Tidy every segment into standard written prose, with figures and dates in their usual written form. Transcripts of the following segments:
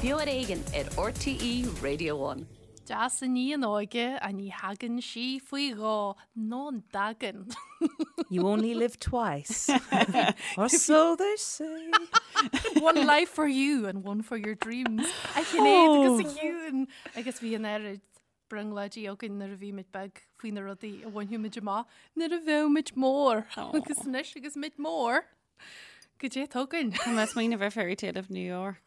Beo ar Éigean ar RTÉ Radio One. Deas an ní an óige ach ní thagann sí faoi dhó ná an dtagann. You only live twice. Or so they say. One life for you and one for your dreams. A Shinéad agus a Shiún agus bhí an oiread brionglóidí againn nuair a bhí muid beag faoi na rudaí a bhainfeadh muid amach nuair a bheadh muid mór. Agus anois agus muid mór, goidé atá againn. Tá mé ag smaoineamh ar Fairy Tale of New York.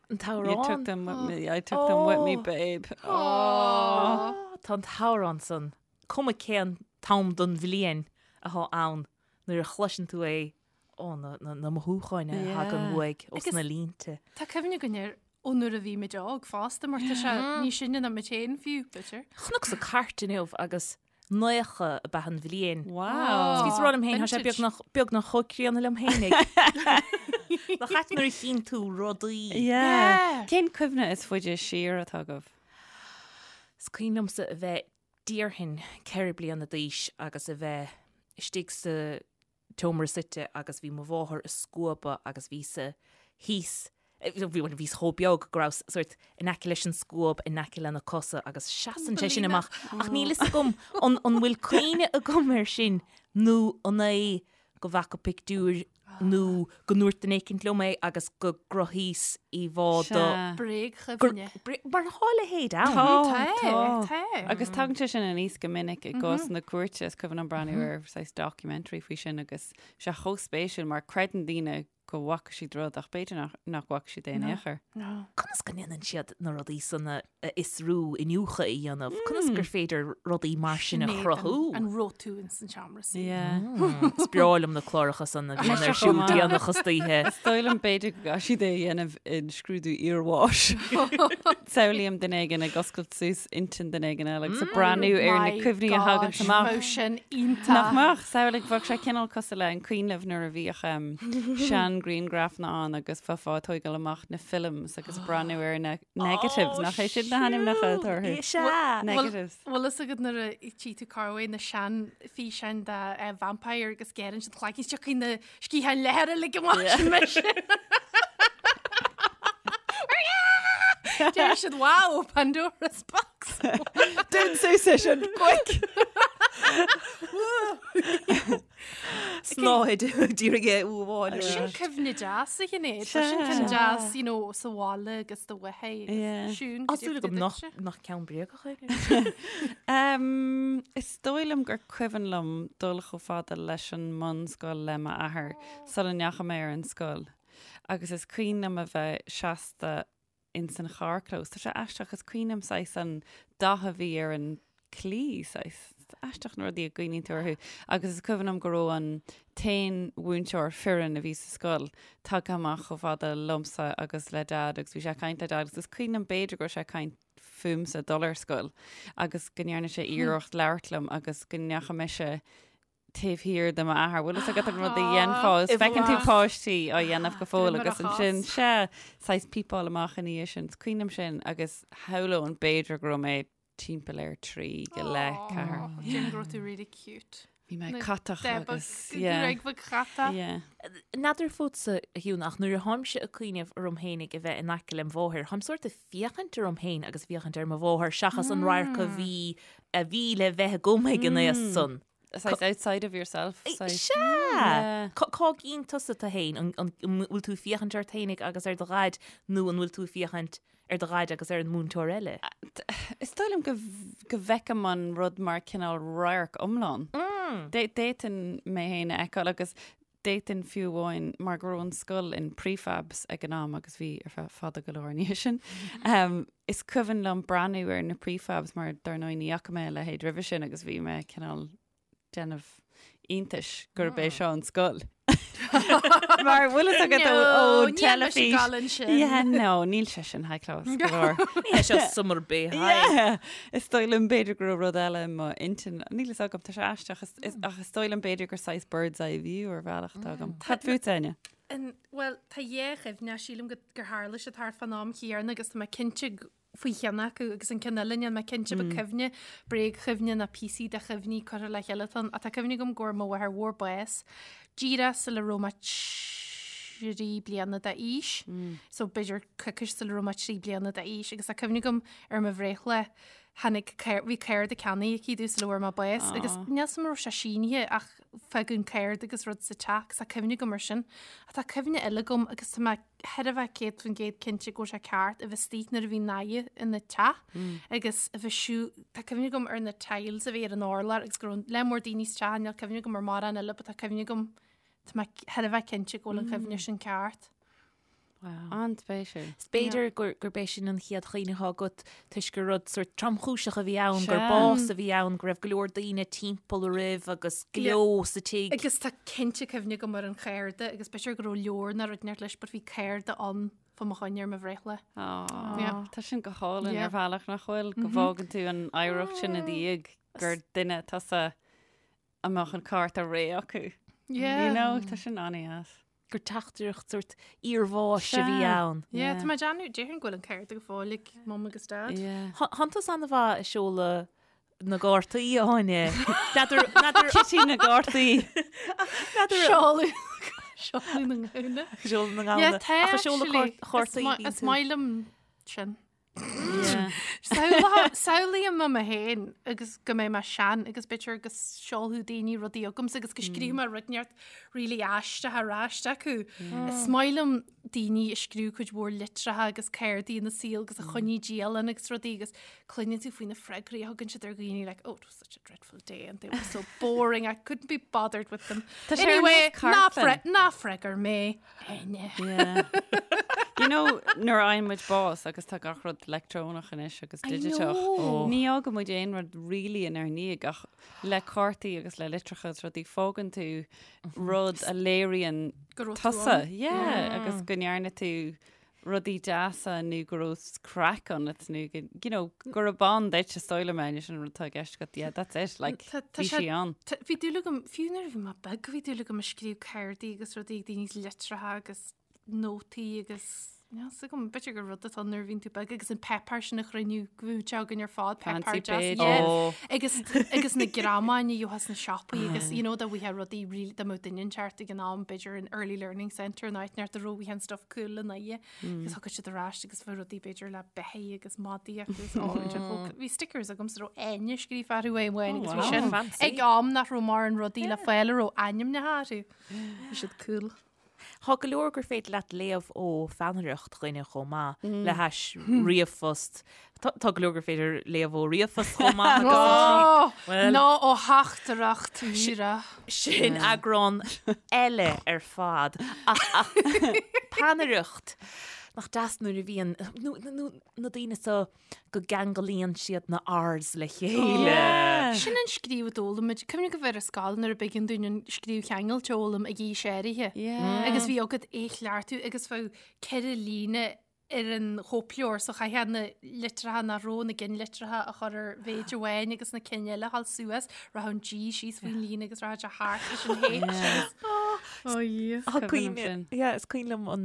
An t-amhrán. You took them with me, I took them with me, babe. Aww. Tá an t-amhrán san, cuma cén t-am don bhliain atá ann, nuair a chloiseann tú é, ó, na, na, na mothúcháin a thagann uaidh ós na línte. Tá cuimhne againn air ó nuair a bhí muid óg fosta mar tá sé níos sine ná muid féin fiú, b'fhéidir. Chonacsa cairt inniu agus 90 ab ea an bhliain. Wow. Bhíos ag rá liom féin, tá sé beagnach, beagnach chomh críonna liom féinig. Nach ait nuair a chíonn tú rudaí. Yeah. Cén cuimhne is faide siar atá agaibh? Is cuimhin liomsa a bheith déarfainn 4 bliana d'aois agus a bheith istigh sa tseomra suite agus bhí mo mháthair ag scuabadh agus bhíos-sa thíos, bhuel bhíos chomh beag go rabhas sórt in aice leis an scuab, in aice lena cosa agus seasann sé sin amach ach níl fhios agam an an bhfuil cuimhne agam air sin nó an é go bhfaca pictiúr nó go ndúirt duine éicint liom é agus go gcruthaíos íomhá de Bréagchuimhne. Mar tá a leithéid ann. Tá, Tá, tá. tá. Agus tagann sé sin aníos go minic i gcás na cúirte, is cuimhin liom breathnú ar saghas documentary faoi sin agus sé chomh spéisiúil mar creideann daoine go bhfaca siad rud ach b'fhéidir nach, nach bhfaca siad é in aon chor. Conas go ndéanann siad na rudaí san a fhiosrú, iniúchadh a dhéanamh? Conas gur féidir rudaí mar sin a chruthú? An raibh tú ins an seomra suí? Yeah. Is breá liom na cláracha san a bhíonn ar siúl déanach istoíche. Is dóigh liom b'fhéidir go gcaithfidh siad é a dhéanamh in scrúdú iarbháis. Samhlaím duine éigin ag oscailt suas intinn duine éigin eile agus ag breathnú ar na My cuimhní a thagann gosh, amach. Bheadh sin iontach. Nach mbeadh? Samhlaigh, bheadh sé cineál cosúil le an cuimhin libh nuair a bhíodh sean-ghrianghrafanna ann agus bheifeá ag tógáil amach na films agus ag breathnú ar na negatives, nach é sin na hainmneacha atá orthu? Is ea! Negatives. Bhfuil fhios agat nuair a tchí tú corruair na sean-fhíseáin de vampire agus géireann siad cloigeann tiocfaidh na sciatháin leathair uilig amach sin mise. Deir siad wow, Pandora's box. Dún suas é sin, quick! Snáthaid d'iarraidh é a fháil. Sin cuimhne deas a Shinéad. Tá sin ceann deas, you know, sa bhaile agus do mháthair Yeah. Siún, Tá cad é súil faoi agam nach duitse? nach ceann bréagach é. Um, is dóigh liom gur cuimhin liom dul chomh fada leis an mbunscoil le m'athair sula ndeachaigh mé ar an scoil. Agus is cuimhin liom a bheith seasta ins an charrchlós. Tá sé aisteach, is cuimhin liom saghas an dath a bhí ar an claí, saghas. Is aisteach na rudaí a gcuimhníonn tú orthu. Agus is cuimhin liom go raibh an t-aon mhúinteoir fireann a bhí sa scoil tagtha amach chomh fada liomsa agus le Dad agus bhí sé ag caint le Dad agus is cuimhin liom b'fhéidir go raibh sé ag caint fúmsa dul ar scoil agus go ndearna sé iarracht labhairt liom agus go ndeachaigh mise taobh thiar de m'athair. Bhfuil fhios agat an rud a dhéanfá is feiceann tú páistí á dhéanamh go fóill agus ansin sea, saghas pípeáil amach ina dhiaidh sin. Is cuimhin liom sin agus shamhlóinn b'fhéidir go raibh mé timpeall ar trí go leith, ceathair. Déarfainn go raibh tú really cute. Bhí mé catach agus yeah. Bheag bheag chatach. Yeah. N'fheadar fútsa, a Shiún, ach nuair a tháimse ag cuimhneamh orm féinig a bheith in aice lem mháthair, táim sórt ag féachaint orm féin agus féachaint ar mo mháthair seachas an radharc a bhí a bhí le bheith agam ag an aos san. Saghas outside of yourself. Saghas. Sea! Yeah. Cá gcíonn tusa tú féin? An an bhfuil tú ag féachaint ort féinig agus ar do dhaid nó an bhfuil tú ag féachaint ar do dhaid agus ar an múinteoir eile? Is dóigh liom go go bhfeicim an rud mar cineál radharc iomlán. D'fhéadfainn mé féin a fheiceáil agus D'fhéadfainn fiú amháin, mar go raibh an scoil in prefabs ag an am agus bhí ar feadh fada go leor ina dhiaidh sin, is cuimhin liom breathnú ar na prefabs mar dar ndóigh ní fhaca mé a leithéid roimhe sin agus bhí mé cineál déanamh iontais gurb é seo an scoil. Mar bhfuil fhios agat ó No, níl mise teilifís. ag gabháil ansin. Yeah, no, níl sé sin high class go leor. Ní hé seo Summer Bay High. Yeah! Is dóigh liom b'fhéidir go raibh rud eile i mo intinn. Níl fhios agam, tá sé aisteach. Is, is, ach is dóigh liom b'fhéidir gur saghas bird's eye view ar bhealach atá agam. Cad fút, Áine? An, bhuel, tá dhá chuimhne, sílim go, gur tharla siad thart fán am chéanna agus tá mé cinnte g- faoi cheann acu agus an ceann eile níl mé cinnte ba cuimhne, bréagchuimhne ná píosaí de chuimhní curtha le chéile atá ann. Ach tá cuimhne agam go bhfuair mo mháthair mhór bás díreach sula raibh mé. 3 bliana d'aois, so b'fhéidir coicís sula raibh mé 3 bliana d'aois agus tá cuimhne agam ar mo bhreithlá tháinig bhí cárta ceannaithe aici domh sula bhfuair mé bás agus níl 'fhios a'm an raibh sé sínithe ach fágadh an cárta agus rud sa teach agus tá cuimhne agam ar sin. Ach tá cuimhne eile agam agus tá mé thar a bheith 100% cinnte go bhfuil sé ceart a bheith istigh nuair a bhí Niamh ina teach agus a bheith siú tá cuimhne agam ar na tiles a bhí ar an urlár agus go raibh lear mór daoine sa teach níl cuimhne agam ar mórán eile but tá cuimhne agam Tá mé thar a bheith cinnte go bhfuil an chuimhne sin ceart. Wow. An-spéisiúil. Is b'fhéidir gurb é sin an chéad chuimhne atá agat toisc gur rud sort tromchúiseach a bhí ann, gur bás a bhí ann, go raibh go leor daoine timpeall oraibh agus gleo sa tigh. Agus tá cinnte cuimhne agam ar an chárta agus b'fhéidir go raibh leabhar nó rud inteacht leis but bhí cárta ann fá mo choinne ar mo bhreithlá. Tá sin go hálainn ar bhealach nach bhfuil, go bhfágann tú an oidhreacht sin i do dhiaidh gur duine tusa a mbeadh an cárta réidh acu. Yeah. You know, tá sin an-deas. Gur teachtaireacht sort iarbháis a bhí ann. Yeah, tá mé ag déanamh, déarfainn go bhfuil an cárta go fóill ag mum agus dad. Yeah. Thánn tusa an-mhaith ag seoladh na gcártaí, Áine. N'fheadar, n'fheadar... Kitty na gcártaí. N'fheadar... Seoladh, seoladh na ngamhna. Seoladh na ngamhna. Yeah, tá Ach ag seoladh actually. cártaí bíonn Is tú. maith liom sin. Samhlaím mé féin agus go mbeidh mé sean agus b'fhéidir go seolfadh daoine rudaí chugamsa agus go scríobh mé rud inteacht really aisteach ar ais acu. Is maith liom daoine a scríobh cuid mhór litreacha agus cártaí ina saol agus a choinnigh dialann agus rudaí agus cluineann tú faoi na freagraí a thugann siad ar dhaoine like, oh, it was such a dreadful day and they were so boring, I couldn't be bothered with them. Tá sé ar Anyway, nós ná cartlann. fre- ná freagair mé. Áine. Yeah. You know, nuair a fhaigheann muid bás agus tá gach rud leictreonach anois agus I digiteach, know. ní fhágann muid aon rud really inár ndiaidh ach le cártaí agus le litreacha agus rudaí fágann tú rud a léiríonn Go raibh tú tusa. ann. Yeah, agus go ndearna tú rudaí deasa nó go raibh craic ionat nó go, you know, gurb ann duit is dóigh liom é sin an rud atá i gceist agat. Yeah, that's it, like, Tá- tá bhí sé- sí ann. Tá- Bhí dúil agam, fiú nuair a bhí mé beag, bhí dúil agam ag scríobh cártaí agus rudaí ag daoine litreacha agus nótaí agus níl 'fhios agam, b'fhéidir gur rud atá nuair a bhíonn tú beag agus an páipéar sin a chruinniú go bhfuil sé againn ar fad, Fancy páipéar deas, page. yeah. Oh. Agus, agus na greamáin a gheofá sna siopaí agus, you know, dá bhfaighfeá rudaí really, dá mbeadh duine inteacht ag an am, b'fhéidir an Early Learning Centre in áit inteacht a raibh an stuff cool in aghaidh agus thugad siad ar ais agus bheadh rudaí b'fhéidir le beithígh agus madaí agus ó, bhí stickers agam sa raibh Áine scríofa orthu uaidh amháin agus bhí wow. sin Fancy. ag am nach raibh mórán rudaí le fáil a raibh ainmneacha orthu. Bhí siad cool. Tá go leor gur féidir leat léamh ó pheannaireacht dhuine chomh maith le hais ríomhphost. Tá tá go leor gur féidir léamh ó ríomhphost chomh maith agus Ó, Well- ná ó theachtaireacht mhíre. sin eagrán eile ar fad. Ach, ach peannaireacht nach deas nuair a bhíonn nó, nó, na daoine so go gceanglaíonn siad na R's le chéile. Sin an scríobh a d'fhoghlaim muid. Cuimhnigh go bhfuair ar scoil nuair a b'éigean dúinn an scríobh cheangailte a fhoghlaim ag aois áirithe. Yeah. Agus bhí agat é chleachtadh agus bheadh 4 líne ar an chóipleabhar so chaithfeá na litreacha nach raibh na gcinnlitreacha a chur ar mhéid amháin agus na cinn eile a dhul suas, rachadh an G síos faoin líne agus rachadh sé thart leis an H. Oh, Ó Tá Cuimhin liom cuimhne- sin. yeah, is cuimhin liom an,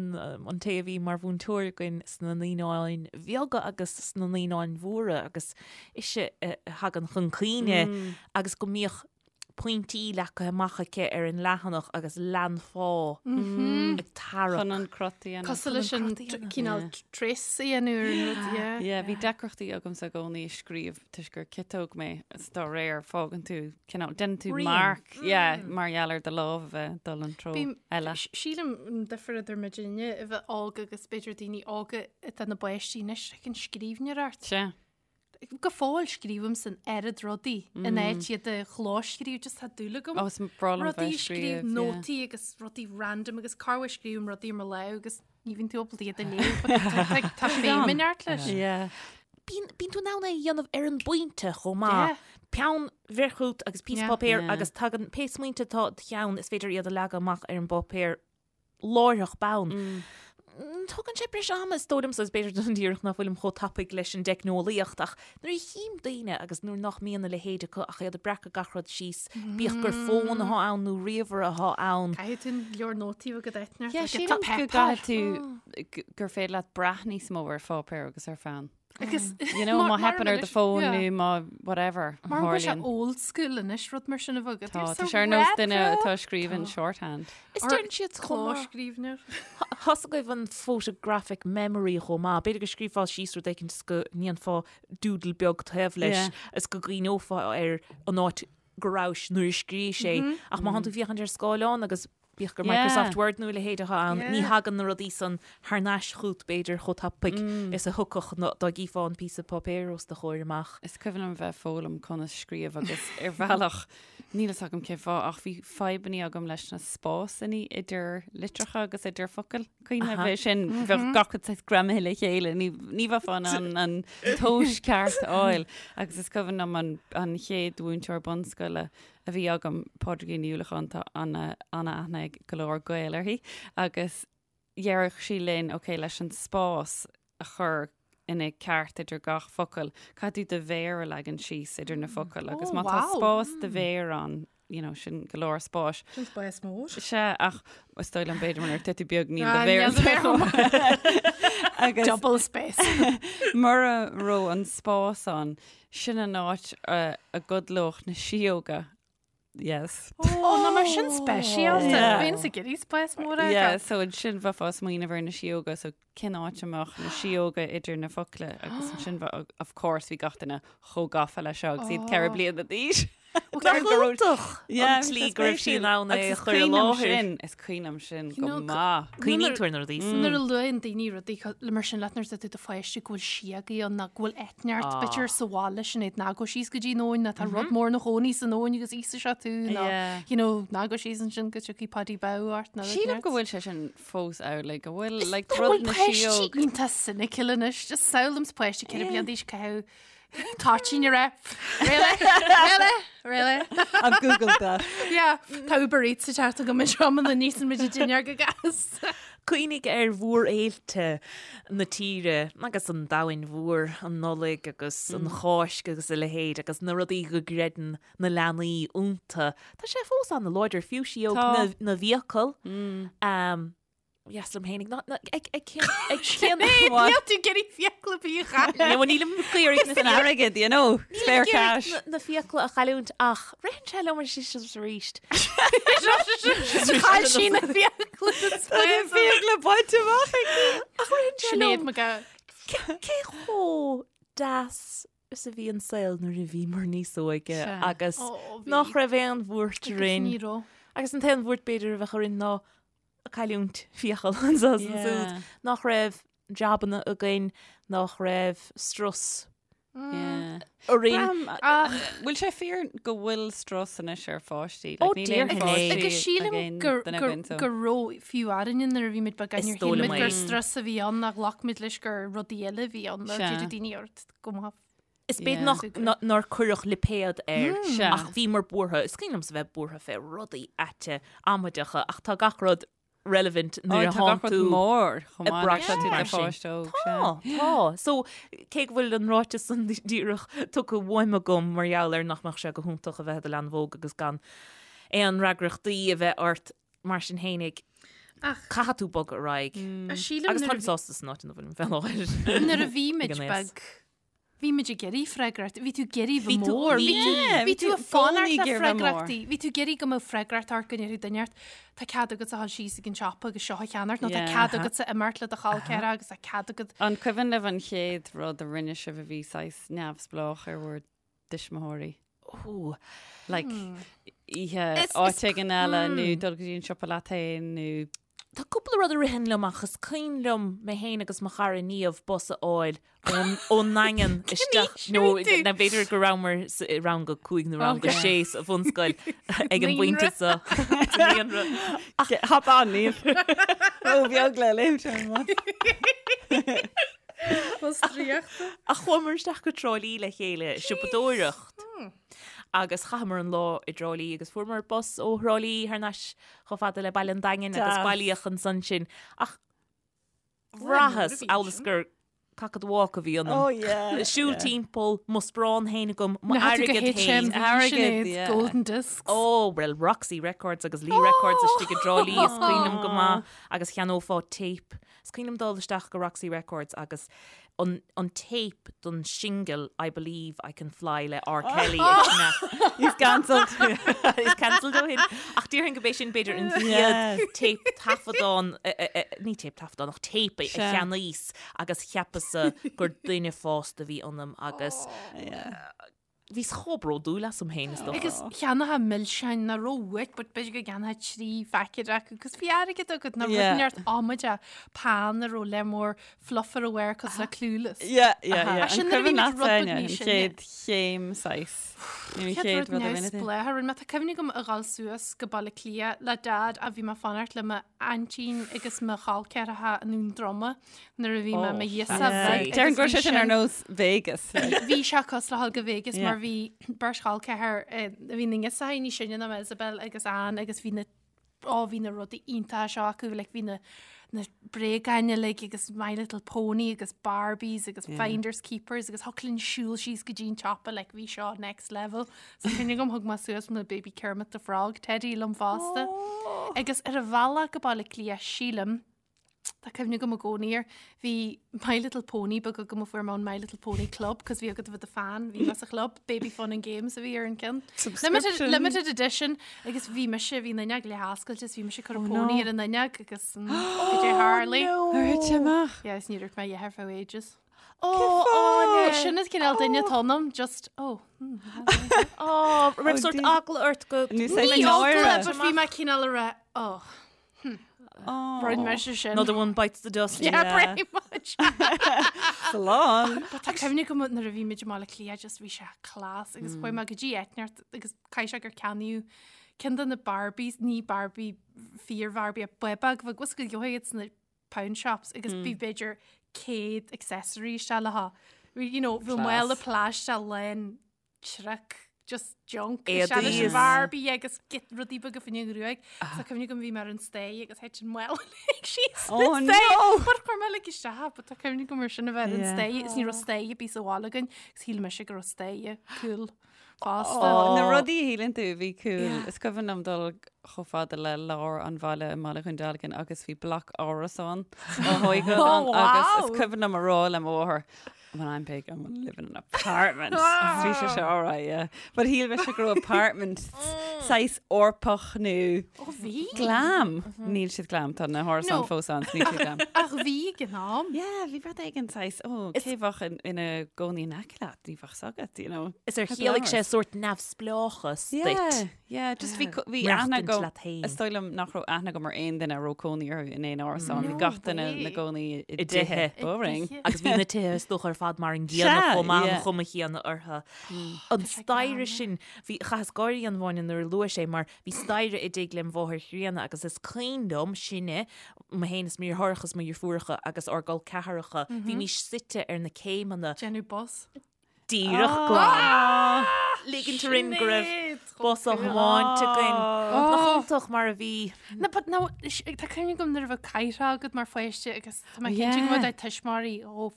an té a bhí mar mhúinteoir againn sna naíonáin bheaga agus sna naíonáin mhóra agus ise a thagann chun cuimhne agus go mbíodh pointí leagtha amach aici ar an leathanach agus leanfá ag tarrac. Chun an crot a dhéanamh. Cosúil leis an Chun an crot a dhéanamh. cineál trace a dhéanamh ar an rud, yeah. Yeah, bhí deacrachtaí agamsa i gcónaí ag scríobh toisc gur ciotóg mé is dá réir fágann tú cineál déanann tú Rian. marc yeah, mar gheall ar do lámh a bheith ag dul an treo Bím- eile. Sílim an difear idir muidinne a bheith óg agus b'fhéidir daoine óga atá ina bpáistí anois, like an scríbhneoireacht. Sea. Go fóill scríobhaim san oiread rudaí in áit iad a chlóscríobh, just tá dúil agam. Ó, is breá liom Rudaí bheith a scríobh, scríobh, yeah. nótaí agus rudaí random agus corruair scríobhaim rudaí ar mo lámh agus ní bhíonn tú ábalta iad a léamh but tá- tá- tá feidhm in neart leis. Yeah. Bíonn bíonn tú in ann é a dhéanamh ar an bpointe chomh maith. Yeah. Peann bheir chugat agus píosa Yeah. páipéir Yeah. agus tagann pé smaointe atá i do cheann is féidir iad a leagadh amach ar an bpáipéar láithreach bonn. Tógann sé breis ama is dóigh liomsa, is b'fhéidir don díreach nach bhfuilim chomh tapaidh leis an dteicneolaíocht ach nuair a chím daoine agus nuair nach mbíonn a leithéid acu ach iad ag breacadh gach rud síos, bíodh gur fón atá ann nó ríomhaire atá ann. Caithfidh tú an leabhar nótaí a bheith agat Yeah, sílim go gcaithfidh tú gur féidir leat brath níos mó ar pháipéar agus ar pheann. Agus You know, má theipeann ar do fón nó má whatever. Mar go sé old school anois rud mar sin a bheith agat. Tá tá sé ar nós duine atá ag scríobh in shorthand. Is deireann siad chomh maith. Clóscríbhneoir. Tá 's agaibh an photographic memory chomh maith. B'fhéidir go scríobhfá síos rud éicint is go ndéanfá doodle beag taobh leis is go gcuimhneofá ar an áit go rabhais nuair a scríobhais é. Ach má thánn tú ag féachaint ar scáileán agus Bíodh gur Microsoft Word nó a leithéid atá ann, ní thagann na rudaí san thar n-ais chút b'fhéidir chomh tapaidh is a thiocfadh dá gcífeá an píosa páipéir os do chomhair amach. Is cuimhin liom bheith ag foghlaim conas scríobh agus ar bhealach, níl fhios agam cén fáth, ach bhí fadhbannaí agam leis na spásannaí idir litreacha agus idir focail. Cuimhin liom bheith sin, bheadh gach rud saghas greamaithe le chéile, ní ní bheifeá in ann an tomhas ceart a fháil. Agus is cuimhin liom an an chéad mhúinteoir bunscoile a bhí agam, Pádraigín Ní Uallacháin, tá ana-aithne ag go leor Gael uirthi, agus dheireadh sí linn, ok, leis an spás a chur ina ceart idir gach focal, caithfidh tú do mhéar a leagan síos idir na focail, agus má tá spás do mhéar ann, you know, sin go leor spáis. Sin spás mór. Sea, ach is dóigh liom b'fhéidir nuair atá tú beag níl do mhéar Agus Double space. mura raibh an spás ann, Sin an áit a gcodlódh na síóga. Yes. Ó, ná mar sin speisialta. Yeah. Bhíonn sa gcirí spás mór agat. Yeah, so ansin bheifeá ag smaoineamh ar na síóga, so cén áit a mbeadh na síóga idir na focla agus ansin bheadh, of course, bhí gach duine chomh gafa leis seo agus iad 4 bliana d'aois. Nach iontach an tslí go raibh sí in ann é a chur i láthair. Is cuimhin liom sin go maith. Cuimhníonn tú ar na rudaí san. Nuair a luann daoine rudaí le mar sin leat nuair atá tú i do pháiste go bhfuil síogaí ann nó go bhfuil eitneart b'fhéidir sa bhaile sin iad ná gabh síos go dtí an abhainn nó tá rud mór ina chónaí san abhainn agus íosfaidh sé tú nó you know ná gabh síos ansin go dtiocfaidh Paddy Bodhmhall ort nó Sílim go bhfuil sé sin fós amhlaidh go bhfuil like rud na síóg. Iontach cynical anois just samhlaím páiste 4 bliana d'aois caitheamh Toitín a rá. Really? Really? Really? I've googled that. Yeah, tá Uber Eats ag teacht agam anseo muna n-íosann muid an dinnéar go gasta. Cuimhnigh ar mhórfhéilte na tíre agus an domhain mhóir, an Nollaig agus an Cháisc agus a leithéid agus na rudaí go gcreideann na leanaí iontu. Tá sé fós an-láidir, fiú síóg na bhfiacal. Dheas liom fhéinig ná ag ag cén ag cén Níl tú ag iarraidh fiacla ar bith a chailliúint. Ní nílim ag iarraidh na San airgead, you know, spare cash. Na fiacla a chailliúint ach ritheann sé liom arís arís. Chaill sí na fiacla. Tá na fiacla bainte amach aici. Ach ritheann sé Sinéad liom McGowan. cé chomh deas is a bhí an saol nuair a bhíomar níos óige agus nach raibh aon bhuairt orainn. Ní raibh. Agus an t-aon bhuairt b'fhéidir a bheadh orainn ná cailliúint fiacal anseo is ansiúd, nach raibh jabanna againn, nach raibh strus orainn. Ach bhfuil sé fíor go bhfuil strus anois ar pháistí? Ó, déarfainn é. Agus sílim gur raibh fiú orainne nuair a bhí muid beag, níor shíl muid gur strus a bhí ann ach ghlac muid leis gur rudaí eile a bhí ann, nó d'éirigh daoine ort go maith. Is b'fhéidir nach nár cuireadh lipéad air ach bhíomar buartha, is cuimhin liomsa bheith buartha fé rudaí aite amaideacha ach tá gach rud relevant nuair a thánn tú mór chomh maith leis an do pháiste óg. Tá, tá. So cé go bhfuil an ráiteas san díreach tugtha uaim agam mar gheall ar nach mbeadh sé go hiontach a bheith i do leanbh óg agus gan aon fhreagrachtaí a bheith ort mar sin fhéinig caithfidh tú bogadh ar aghaidh. Agus táim sásta san áit ina bhfuilim fé láthair. Nuair a bhí muid beag Bhí muid ag iarraidh freagracht, bhí tú ag iarraidh bheith mór, bhí tú, bhí tú ag fanacht le freagrachtaí, bhí tú ag iarraidh go mbeadh freagracht ort go ndéarfadh duine ort, tá cead agatsa a dhul síos ag an siopa agus seo a cheannacht, nó tá cead agatsa imeacht le do chol ceathracha agus tá cead agat. An cuimhin libh an chéad rud a rinne sibh a bhí saghas neamhspleách ar bhur dtuismitheoirí? Ó. Like, oíche áit éigin eile nó dul go dtí an siopa leat féin nó. Tá cúpla rud a ritheann liom ach is cuimhin liom mé féin agus mo chara Niamh bus a fháil ón nDaingean isteach nó b'fhéidir go rabhamar i rang a 5 nó rang a 6 sa bhunscoil ag an bpointe seo. Sa naíonra. Hop on, Niamh. Ró-bheag le léimt ar an mbus. Bus draíochta. Ach chuamar isteach go Trá Lí le chéile, siopadóireacht. Agus chaitheamar an lá i dTrá Lí agus fuaireamar bus ó Thrá Lí thar n-ais chomh fada le Baile an Daingin agus bailíodh ansan sinn. Ach bhraitheas amhail is gur. cock of the walk a bhí ionam. Oh yeah. Siúl timpeall, mo sparán féin agam, mo Na tú go airgead féin. HMV Airgead, Sinéad, yeah. Golden Discs. Oh, well, Roxy Records agus Lee Records istigh i dTrá Lí, is cuimhin liom go maith, agus cheannófá tape. Is cuimhin liom dul isteach go Roxy Records agus an, an tape don singil I Believe I Can Fly le R. Kelly ag sna- He's cancelled. He's cancelled ó shin. Ach déarfainn go b'é sin b'fhéidir an chéad tape taifeadán, ní tape taifeadán ach tape a Sea. cheannaíos agus cheapas-sa gur duine fásta a bhí ionam agus bhíos chomh bródúil asam féin is dócha. Agus cheannófá milseáin nach raibh uait, but b'fhéidir go gceannófá 3 phaicéad acu, agus bhí airgead agat nach Yeah. rud neart amaideach pan a raibh lear mór fluff ar a bharr cosúil le Clueless. Yeah, yeah, yeah. Ach sin An nuair a bhí cuimhin muid leat rud beag Áine, níos an sine. chéad chéim saghas. Nó an Chéad chéad rud rud a rinne tú. neamhspleách a rinne mé. Tá cuimhne agam a dhul suas go Baile Átha Cliath le Dad a bhí mé ag fanacht le m'aintín agus mo chol ceathracha i nDún Droma nuair a bhí mé i mo ghirseach bheag. Déarfainn go agus raibh sé bhí sin ar sin- nós Vegas. Bhí sé cosúil le dhul go Vegas Yeah. mar bhí beirt chol ceathar eh, bhí na girseachaí níos sine ná mé Isabel agus Anne agus bhí na ó bhí na rudaí iontacha seo acu like bhí na na bréagáin uilig agus My Little Pony agus Barbies agus yeah. Finders Keepers agus thiocfadh linn siúl síos go dtí an tsiopa like bhí seo next level. So cuimhne agam thug mé suas mo Baby Kermit the Frog Teddy liom fosta. Oh. Agus ar an bhealach go Baile Átha Cliath sílim Tá cuimhne agam i gcónaí air. Bhí My Little Pony beag agam a fuair mé ón My Little Pony Club, cos bhí agat a bheith i do fan, bhí mé sa chlub, Baby Fun and Games a bhí ar an gceann. Limited, Subscription. limited edition agus bhí mise, bhí an fhuinneog leath-oscailte is bhí mise ag cur an Oh, pony no. ar an fhuinneog agus mm, cad é tharla. Ar thit sé amach? Yeah, is ní raibh mé ar feadh ages. Oh, Oh, sin an cineál duine atá ionam, just, oh. Oh, raibh Oh, sort dear. eagla ort go Ní sé Ní náire. eagla, but bhí mé cineál a rá, oh, Rinne mise sin. Another one bites the dust. Yeah, Yeah. pretty much. Slán. But tá cuimhne agam nuair a bhí muid i mBaile Átha Cliath just bhí sé class agus chuaigh mé go dtí Eitneart agus caithfidh sé gur ceannaíodh ceann de na Barbies, ní Barbie fíor Barbie ach beag bheag was go gheobhaidh iad sna pound shops agus bhí b'fhéidir 100 accessory isteach léi. You know, bhí mála plaisteach lán truck just junk Éadaí is is- Barbie agus get rudaí beaga faoin ngruaig. So cuimhne agam bhí mé ar an staighre agus thit an mála uilig síos Oh, na staighre. no! But chuir mé like isteach, but tá cuimhne agam mar sin a bheith ar an Yeah. staighre is ní raibh staighre ar bith sa bhaile againn agus shíl mise go raibh staighre cool fosta. Oh, na rudaí a shíleann tú a bhí cool. Is cuimhin liom dul chomh fada le lár an bhaile i mBaile Dhún Dealgan agus bhí bloc árasán á thógáil Oh, ann agus is wow. cuimhin liom a rá le mo mháthair, When I'm big, I'm gonna live in an apartment. Agus bhí sé seo all right, yeah. But shíl mise go raibh apartment saghas Eorpach nó Ó bhí. glam. Níl siad glam, tá na hárasáin No. fós ann, níl siad glam. Ach bhí ag an am. Yeah, bhí rud éigin saghas, ó, cé bheadh ina gcónaí in aice leat, ní bheadh 's agat, you know. Is ar chiallaigh sé sórt neamhspleáchas Yeah, duit. yeah, just bhí co- bhí aithne Maireachtaint agam, leat féin. is dóigh liom nach raibh aithne agam ar aon duine a raibh cónaí orthu in aon árasán, bhí No gach duine way. ina gcónaí i I dtithe. dtithe. Boring. dtithe. Agus bhí na tithe is dócha ar fad mar an gcéanna Sea, chomh maith an yeah. chuma chéanna orthu. An staighre sin, bhí chaitheas gáire a Áine nuair a luaigh sé mar bhí staighre i dtigh lem mháthair chríonna agus is cuimhin liom sinne, mé féin is mo dheartháireacha is mo dheirfiúracha agus ár gcol ceathracha, bhímís suite ar na céimeanna Déanamh bus. díreach glan. Ligint orainn go raibh Sinéad, bus á chomh cool. thiomáint againn. Nach iontach mar a bhí. No, but no, tá cuimhne agam nuair a bheadh caidhre agat mar pháiste agus tá mé cinnte go Yeah. bhfuil do thuismitheoirí ó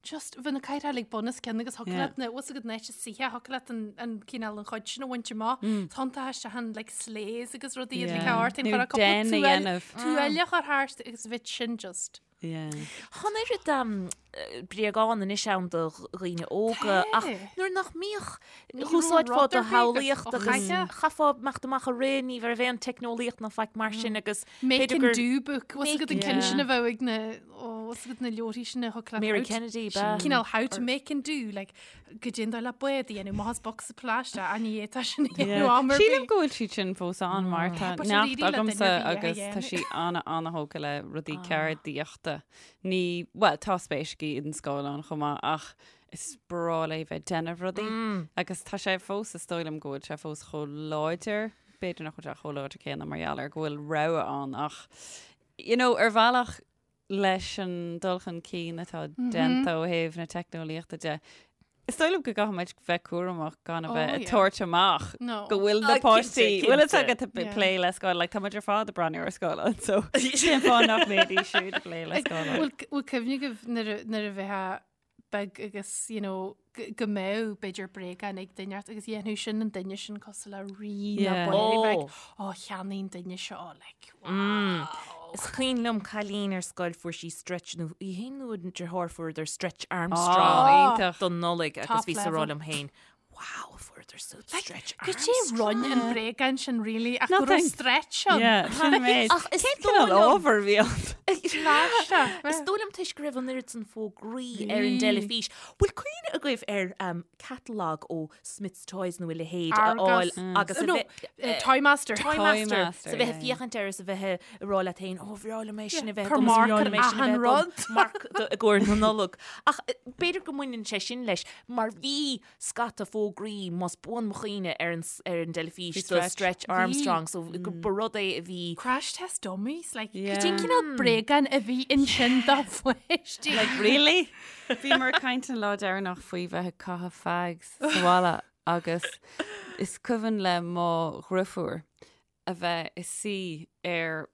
just bheadh na caidhre like bunoscionn agus thiocfadh Yeah. leat na bhfuil agat na suithe thiocfadh leat an an cineál an chuid sin a bhaint amach. Tá isteach an like sleighs agus rudaí Yeah. like thart Nó den a dhéanamh. tuaille chur thart agus bheadh sin just. Yeah. Tá an oiread bréagán anois ann do dhaoine óga ach nuair nach mbíodh úsáidfeá do shamhlaíocht agus chaithfeá imeacht amach ag rith, ní raibh aon teicneolaíocht ná faic mar sin agus Make b'fhéidir and gur do book, bhfuil agat an ceann Yeah. sin a bheadh ag na ó, bhfuil agat na leabharthaí sin a thug leat Mary how to- Kennedy, b'ea. Cineál how to make and do, like go dtéann do le bád a dhéanamh, maith as bocsa plaisteach, a ní fhéadfá sin a dhéanamh am ar Sílim bith. go bhfuil siad sin fós ann mar tá But neacht really le duine agamsa ar bith a agus tá dhéanamh. sí ana ana-thógtha le rudaí ceardaíochta. Ní, bhuel, tá spéis aici in scáileán chomh maith ach is breá léi bheith ag déanamh rudaí agus tá sé fós, is dóigh liom go bhfuil sé fós chomh láidir, b'fhéidir nach bhfuil sé chomh láidir céanna mar gheall ar go bhfuil rogha ann ach you know, ar bhealach leis an dul chun cinn atá déanta ó thaobh na teicneolaíochta de. Is dóigh liom go gcaithfidh muid bheith cúramach gan a Oh, bheith ag yeah. tabhairt amach No. go bhfuil na Ah, páistí, cinnte, bhfuil fhios cinnte. agat ag Yeah. plé le scáileán, like, tá muid ar fad ag breathnú ar scáileán, so cén fáth nach mbeidís siúd ag plé le scáileán. Bhfuil bhfuil cuimhne agaibh nuair a- nuair a bheifeá beag agus, you know, go go mbeadh b'fhéidir bréagán ag duine ort agus dhéanfadh sin an duine sin cosúil le rí nó Yeah. buaire bheag. Oh. Ó, cheannaigh an duine seo, like, Mm. wow. Is cuimhin liom cailín ar scoil fuair sí stretch nó í féin nó a deartháir fuaireadar Stretch Armstrong Oh, iontach. don Nollaig agus Top bhí sa rá level. liom féin, Wow, fuaireadar siúd Stretch Cad é Armstrong. rinne an bréagán sin really ach go raibh Nothing. stretch ann. Yeah, sin an méid. Ach is Cén dóigh cineál liom- ábhar a bhí ann? Is dóigh liom toisc go raibh an oiread san fógraí ar an dteilifís. Bhfuil cuimhne agaibh ar um, catalog ó Smyths Toys nó a leithéid a fháil Argos. agus a No, bheith eh, Toymaster. Toymaster Toymaster, sa bheith yeah, féachaint air is a bheith ag rá leat féin ó bhreá liom é sin a bheith Cur agam, is marc bhreá ar liom é sin a achan bheith agam. rud. Marc do- i gcomhair na Nollag. Ach eh, b'fhéidir go mbaineann sé sin leis mar bhí scata fógraí más buan mo chuimhne ar an s- ar an dteilifís Bhí do Stretch. Stretch Armstrong so go ba rud é a bhí Crash Test Dummies, like, Yeah. cad é an cineál bréagán a bhí ansin do pháistí. Like, really? Bhíomar ag caint an lá deireanach faoi bheith ag caitheamh fags sa bhaile agus is cuimhin le mo dheirfiúr a bheith ina suí ar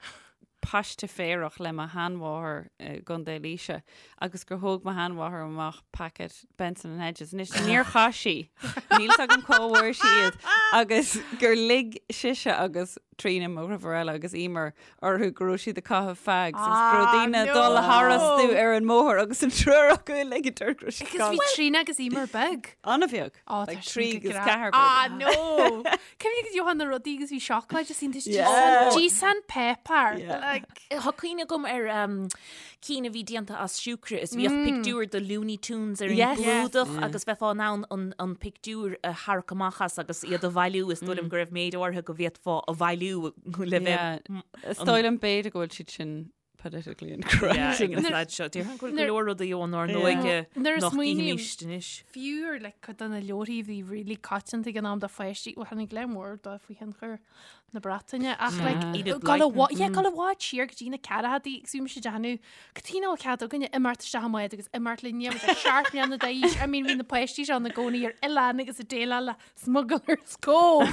paiste féarach le mo sheanmháthair i gContae Laoise agus gur thóg mo sheanmháthair amach packet Benson and Hedges. Anois níor chaith sí, níl fhios agam cá bhfuair sí iad agus gur lig sise agus Tríona mo dheirfiúr eile agus Emer orthu go raibh siad ag caitheamh fags agus go raibh Ah, daoine ag no. dul tharastu ar an mbóthar agus an triúr acu ag ligint orthu go raibh siad Agus bhí Tríona agus Emer beag. An-bheag. Ó, Like tá sin trí go agus grá. ceathair Ah, b'fhéidir. no! Cuimhnigh go dtiocfadh na rudaí agus bhí seacláid is iontas Yeah. Díosán pepper. Yeah. Like, Tá cuimhne agam ar um, cinn a bhí déanta as siúcra is bhíodh pictiúr de Looney Tunes ar an Yes. gclúdach agus bheifeá in ann an, an pictiúr a tharrac amach as agus iad a bhailiú is dóigh liom go raibh méid áirithe go bhféadfá a bhailiú le bheith Yeah. Is dóigh liom b'fhéidir go bhfuil siad sin politically incorrect. Yeah, ag an Nuair- staid seo. Déarfainn go bhfuil go Nuair- leor rudaí ón ár Yeah. n-óige Nuair a nach smaoiním- gcífimís anois. fiú ar like, cuid de na leabharthaí a bhí really coitianta ag an am do pháistí, well, tháinig léim mhór dó faoi thionchar na Breataine ach like, Enid gabháil i Blyton. bhfad- yeah, gabháil i bhfad siar go dtí na ceathrachaidí agus bhí mise ag déanamh cad chuige nach bhfuil cead againne imeacht isteach i mbád agus imeacht linn níl muid ach seacht mbliana d'aois. I mean, bhí na páistí seo ina gcónaí ar oileán agus ag déileáil le Smuggler's Cove.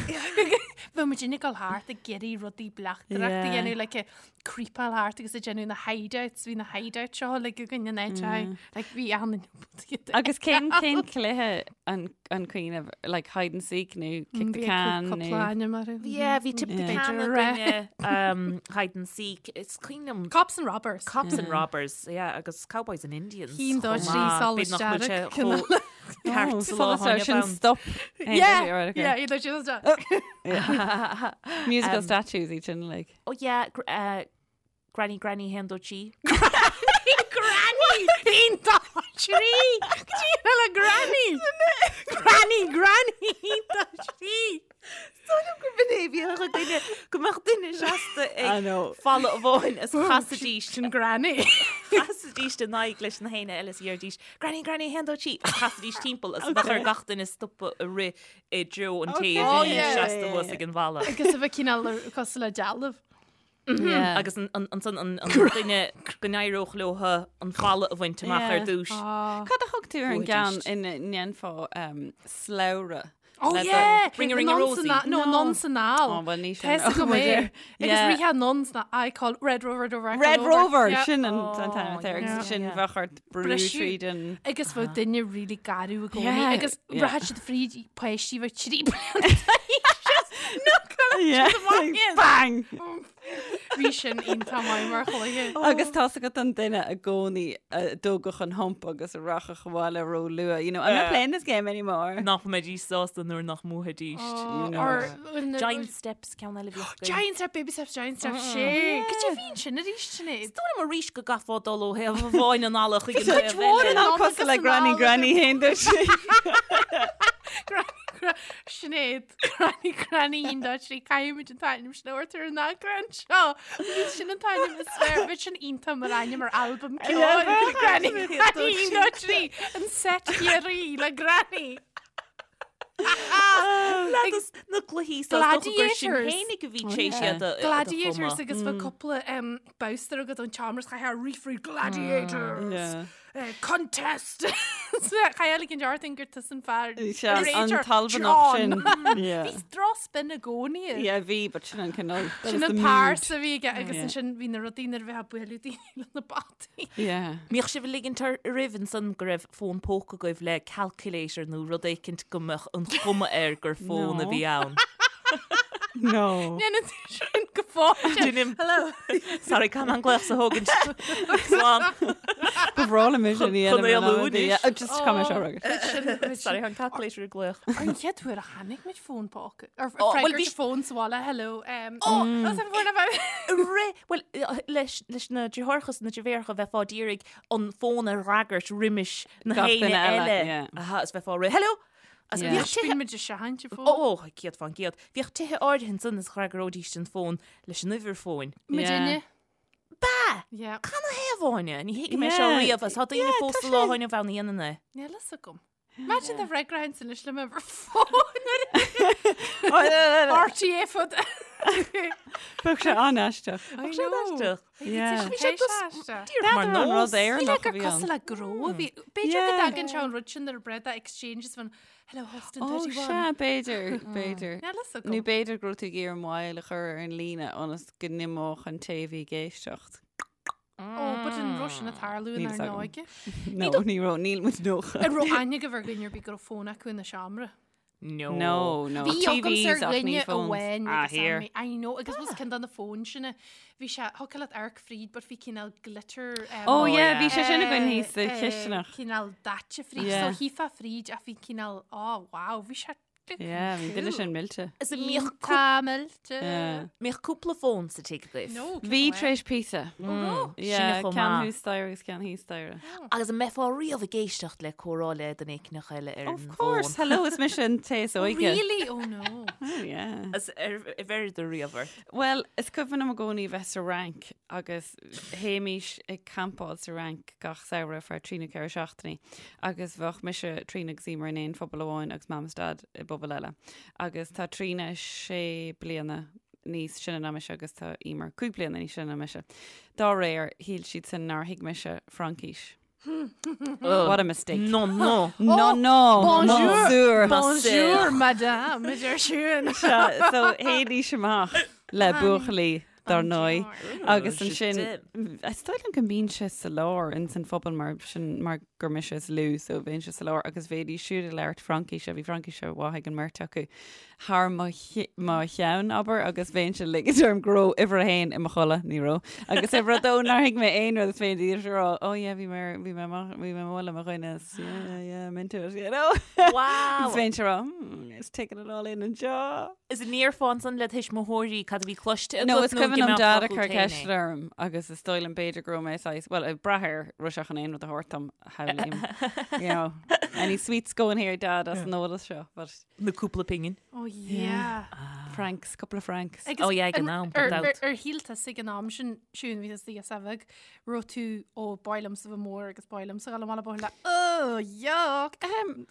Bhí muid ag dul thart ag iarraidh rudaí bleachtaireachta a Yeah. dhéanamh, like, ag creepáil thart agus ag déanamh na hideouts, bhí na hideouts seo like, againn in áit like, bhí an Agus cén cén cluiche an an cuimhin like hide and seek nó kick the can nó nó Yeah, bhí tip the Yeah. can againne, um, hide and seek. Is cuimhin liom Cops and robbers. Cops and robbers, yeah, agus cowboys and Indians. Cinn dó chomh trí maith. solas B'fhéidir nach bhfuil sé dearg, chomh ceart sa lá Oh, atá inniu sin ann. stop. Yeah, yeah, iad sin Musical statues iad sin like. Oh yeah, gr- uh, Granny Granny haon dó trí. Granny! Haon dó trí! Cad é le Granny! Granny, Granny! Haon dó trí! Gur bhí bhí duine go mbeadh duine seasta I ag know. falla amháin is chasaidís Sin Granny. chasaidís in aghaidh leis na héinne eile is dheiridís Granny Granny haon dó trí agus chasaidís timpeall is bheadh ar gach duine stopadh ag rith i dtreo an té a Oh, bhí yeah. seasta thuas ag an bhalla. Agus a bheith cineál cosúil le dealbh. Yeah. Agus an- an- ansan an an duine go n-éireodh leo an falla a bhaint amach ar Yeah. dtús. Cad a thug tú ar an Bhuaidís. gceann ina ndéanfá um, slabhra? Oh Le do- yeah! Ring a ring a Anonn san Rosie. a- No, No. anonn san al. Oh, well, ní sin. Tá go mé. Agus Yeah. ríthe anonn sna I call Red Rover Rover. I Red call Rover Yeah. sin an Oh, an t-ainm atá air, yeah. agus sin Yeah. bheadh ort brú Briseadh. tríd an Agus bheadh duine really garbh i gcónaí. Yeah. Agus Yeah. rachadh siad fríd páistí bheadh trí bliana Yeah. amach. Bang! Bhí sin iontach maith mar chluiche. Agus tá agat an duine i gcónaí a dtógadh an hump agus a rachadh abhaile ró luath. You know, I'm not playing this game anymore. Nach mbeidís sásta nuair nach mbuafaidís. Oh, you know. or when the- Giant Steps ceann eile bhíodh againn. Giant Step, Baby Steps, Giant Steps, sé. Cad é bhíonn sin arís sin é? Is dóigh liom arís go gcaithfeá dul ó thaobh amháin an fhalla chuig an cuid taobh mhór eile. in An ann cosúil le agus Granny anall Granny haon dó trí. Granny, gra- Sinéad, Granny, Granny, haon dó trí, caithfimid an t-ainm sin a thabhairt ar an eagrán seo. Bhí sin an t-ainm is fearr, bhí sin iontach mar ainm ar albam ceoil. Granny, Granny, haon dó trí, an set Chiarraí le Granny. Leadas na cluichí sa dócha gur sin Gladiators. fhéinig a bhí sé siad a- a Gladiators chumadh. agus bheadh cúpla um, bowster agat ón tseomra is chaithfeá rith fríd Gladiators. Yeah. Contest! Chaithfeá ligint ort gur tusa an fear. Sea, an tAlbanach sin. Bhí drochspin i gcónaí air. Yeah, bhí, but sin an cineál. Sin an pearsa a bhí aige agus ansin bhí na rudaí nuair a bheifeá ag bualadh daoine le na bataí. Yeah. Mbíodh sibh ag ligint oraibh ansan go raibh fón póca agaibh le calculator nó rud éicint go mbeadh an chuma air gur fón a bhí ann? No. Déanann tú sin go fóill. Déanaim. Hello. Sorry, caithfidh mé an glaoch seo a thógaint. Slán. Ba bhreá liom é sin a dhéanamh. Chun éalú anois. Just caithfidh mé seo a fhreagairt. Sorry, an calculator ag glaoch. Ar an chéad uair a chonaic muid fón póca. Ar Oh, well, freagairt bhí- fón sa bhaile, hello. Oh, an fón a bheith. Ré, well, leis leis na deartháireacha is na deirfiúracha bheifeá d'iarraidh an fón a fhreagairt roimis na Gach héinne duine eile, eile. yeah. Aha, is bheifeá ré, hello! Agus Yeah. bhíodh tithe... Bíonn muid ag seachaint an fón. Ó, 100%. Bhíodh tithe áirithe ansan is fhreagróidís an fón leis an uimhir fóin. Muidinne. Ba! Yeah. Canathaobh, Áine? Ní thuigim é seo Yeah. riamh agus tá daoine Yeah, fós tá sa sé- lá inniu ann a dhéanann é. Níl fhios agam. Imagine dá bhfreagróinn anois le m'uimhir fóin. RTÉ fud. Bheadh sé an-aisteach. I Bheadh sé know. an-aisteach. Yeah. Bhí sé aisteach. Díreach mar N'fheadar an nós. rud Éireannach Níl a gur bhí cosúil ann. le gnó a bhí. B'fhéidir go Yeah. dtagann sé an rud sin nuair a breith exchange is fan hello Austin Ó, 31. sea, b'fhéidir, b'fhéidir. Níl fhios agam. Nó b'fhéidir go raibh tú ag iarraidh moill a chur ar an líne ionas go n-imeodh an té a bhí ag éisteacht. Ó, but an raibh sin ag tarlú Níl inár fhios agam. n-óige. No, ní raibh, níl muid 90. An raibh aithne agaibh ar dhuine ar bith go raibh fón acu ina seomra. No. No, no. Bhí agamsa TVs ar ach ní dhuine phones. amháin Ah, agus here. I I know agus was ceann de na fóin sin bhí sé thiocfadh leat amharc fríd but bhí cineál glitter um, Oh, Oh, yeah, yeah. bhí sé sin againn eh, thíos sa eh, chisteanach. Cineál daite fríd Yeah. so shílfeá fríd ach bhí cineál oh wow bhí sé Yeah, bhí duine sin millte. Is an mbíodh cú- Tá millte. Yeah. mbíodh cúpla fón sa tigh agaibh. No, Bhí tar éis píosa. Yeah, Sin chomh ceann maith. thuas staighre agus ceann thíos staighre. Agus an mbeifeá riamh ag éisteacht le comhrá le duine éicneach eile ar an Of course, bhfón? hello, is mise an té is óige. Really? Oh no. Oh, yeah. Is ar bheireadar riamh ort? Well, is cuimhin liom i gcónaí bheith sa Fhrainc agus théimís ag campáil sa Fhrainc gach samhradh ar feadh trí nó ceithre seachtainí agus bheadh mise, Tríona agus Emer in aon phuball amháin agus Mam is Dad i bpuball eile. Agus tá Tríona sé bliana níos sine ná mise agus tá Emer cúig bliana níos sine ná mise. Dá réir, shíl siadsan nár thuig mise Fraincis. What a mistake. Non, non. No, no, bonjour. Bonjour. Bonjour, madame, a deir Siún. Sea, so théidís amach le buachaillí dar ndóigh. Agus Oh, ansin, is dóigh liom go mbínnse sa lár ins an phuball mar sin mar gur mise is lú so bheinnse sa lár agus bheidís siúd ag labhairt Fraincíse, bhí Fraincíse mhaith ag an mbeirt acu thar mo mo cheann, abair, agus bheinnse ag ligint orm go raibh uimhir a haon i mo chodladh, ní raibh, agus uimhir a dó nár thuig mé aon rud is bheinn díreach ag rá, oh yeah, bhí mé ar- bhí mé amach, bhí mé amuigh le mo dhuine, is yeah, yeah, I'm into it, you know? Wow! Agus bheinnse ag rá, hmm, just taking it all in anseo. Is an ndéarfá ansan le tuismitheoirí cad a bhí cloiste agat No, is nó cuimhin go liom mbeadh Dad ag focal cur féin é? ceist orm agus is dóigh liom b'fhéidir go raibh mé saghas, well, ag brath ar raibh sé chun aon rud a thabhairt dom, shamhlaím. You know, any sweets going here, Dad, as an eolas seo, but Nó cúpla pingin. Oh yeah. francs, couple of francs. Agus Oh yeah, ag an am, gan ar- dabht. ar- Ar shíl tusa ag an am sin, Siún, bhí tusa ag bheith raibh tú ó ba mhaith liomsa bheith mór agus ba mhaith liomsa dhul amach le buachaill oh yuck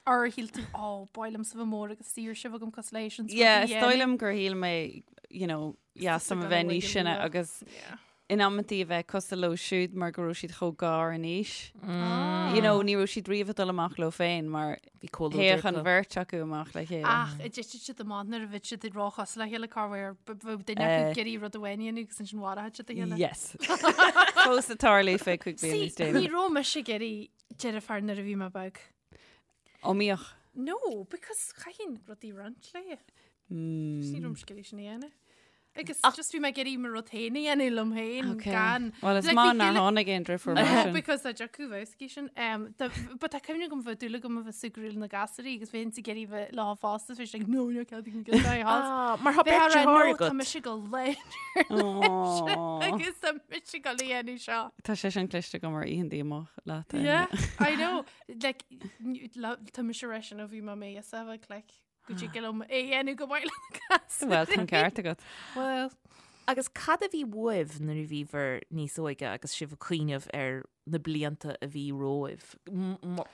Ar shíl tú ó ba mhaith liomsa bheith mór agus saoirse bheith agam cosúil leis an Yeah, is dóigh liom gur shíl mé, you know, yeah, some a bheith níos sine agus in amantaí a bheith cosúil leo siúd mar go raibh siad chomh gar in aois. You know, ní raibh siad riamh ag dul amach leo féin mar Bhí comhluadar théadh an acu. bheirt acu amach le chéile. Ach an dtitfeadh siad amach nuair a bheadh siad ag róchosúil le chéile cá bhfuair bheadh duine acu Eh. ag iarraidh rud amháin a dhéanamh agus ansin mharaíodh siad a chéile. Yes. Fós ag tarlú fé cúig bliana níos See, ní déanaí. raibh mise ag iarraidh deirfiúr nuair a bhí mé beag. Ó mbíodh. No, because chaithfinn rudaí a roinnt léi. Just ní raibh mise ag iarraidh sin a dhéanamh. Agus just bhí mé ag iarraidh mo rud féin a dhéanamh liom féin Okay. gan. Well, is Like, maith bhí nár dúil- tháinig aon deirfiúr mar No, sin. because dá dtiocfadh bheadh sin. Um, tá- but tá cuimhne agam bheith dúil agam a bheith súgradh na gasúirí agus bheinn ag iarraidh bheith leo fosta, bhí siad like, no, no, cead go get house. Ah, mar tá Bheith beirt á rá, deartháir no, tá agat. mise go léir Aw. agus tá mise go léir seo. Tá sé sin cliste agam ar oícheanta amach leat. Áine. Yeah, I know. Like, n- la- tá mise leis sin ó bhí mé mé a bheith like, go dtig liom é a dhéanamh go maith le na gasúirí. Well, tá an ceart agat. Well. Agus cad a bhí uaibh nuair a bhíobhair níos óige agus sibh ag cuimhneamh ar na blianta a bhí romhaibh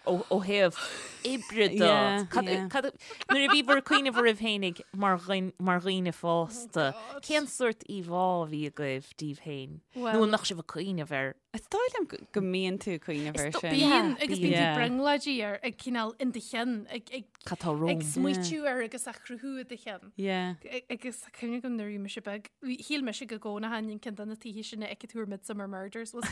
ó thaobh oibre de? Nuair a bhíobhair ag cuimhneamh oraibh féinig mar dhaoine fásta, cén sórt íomhá a bhí agaibh díbh féin? Nó an mbeadh sibh ag cuimhneamh ar? Is dóigh liom go mbíonn tú ag cuimhneamh air sin. Bíonn, agus bíonn tú brionglóidí air ag cineál in do cheann, ag Cad tá romham? Ag smaoitiú air agus á chruthú i do cheann. Yeah. Agus tá cuimhne agam nuair a bhí mise beag, shíl mise go gcónaitheinn in ceann de na tithe sin a fheiceann tú ar Midsomer Murders was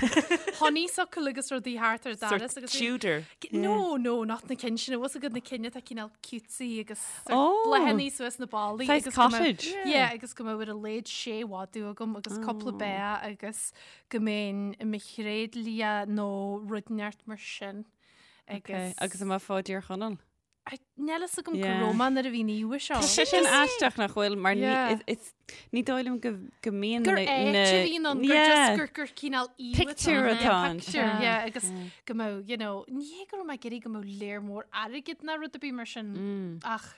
honeysuckle agus rudaí thart ar an doras agus Tudor. No, no, not na cinn sin, was agat na cinn atá cineál cutesy agus oh. bláthanna suas na ballaí. Saghas cottage. Yeah, agus go mbeadh ar a laghad sé mhadadh agam agus cúpla oh. bea agus go mbeinn i mo thréidlia nó rud inteacht mar sin. Agus Agus an mbeifeá i dTír Chonaill? Níl fhios agam cá raibh mé nuair a bhí an íomhá seo. Tá sé sin aisteach nach bhfuil mar ní dóigh liom go go mbíonn Gur áit a bhíonn ann, gur just gur gur cineál íomhá Pictiúr atá ann. Pictiúr, yeah, agus go mbeadh, you know, ní hé go raibh mé ag iarraidh go mbeadh léar mór airgid ná rud ar bith mar sin ach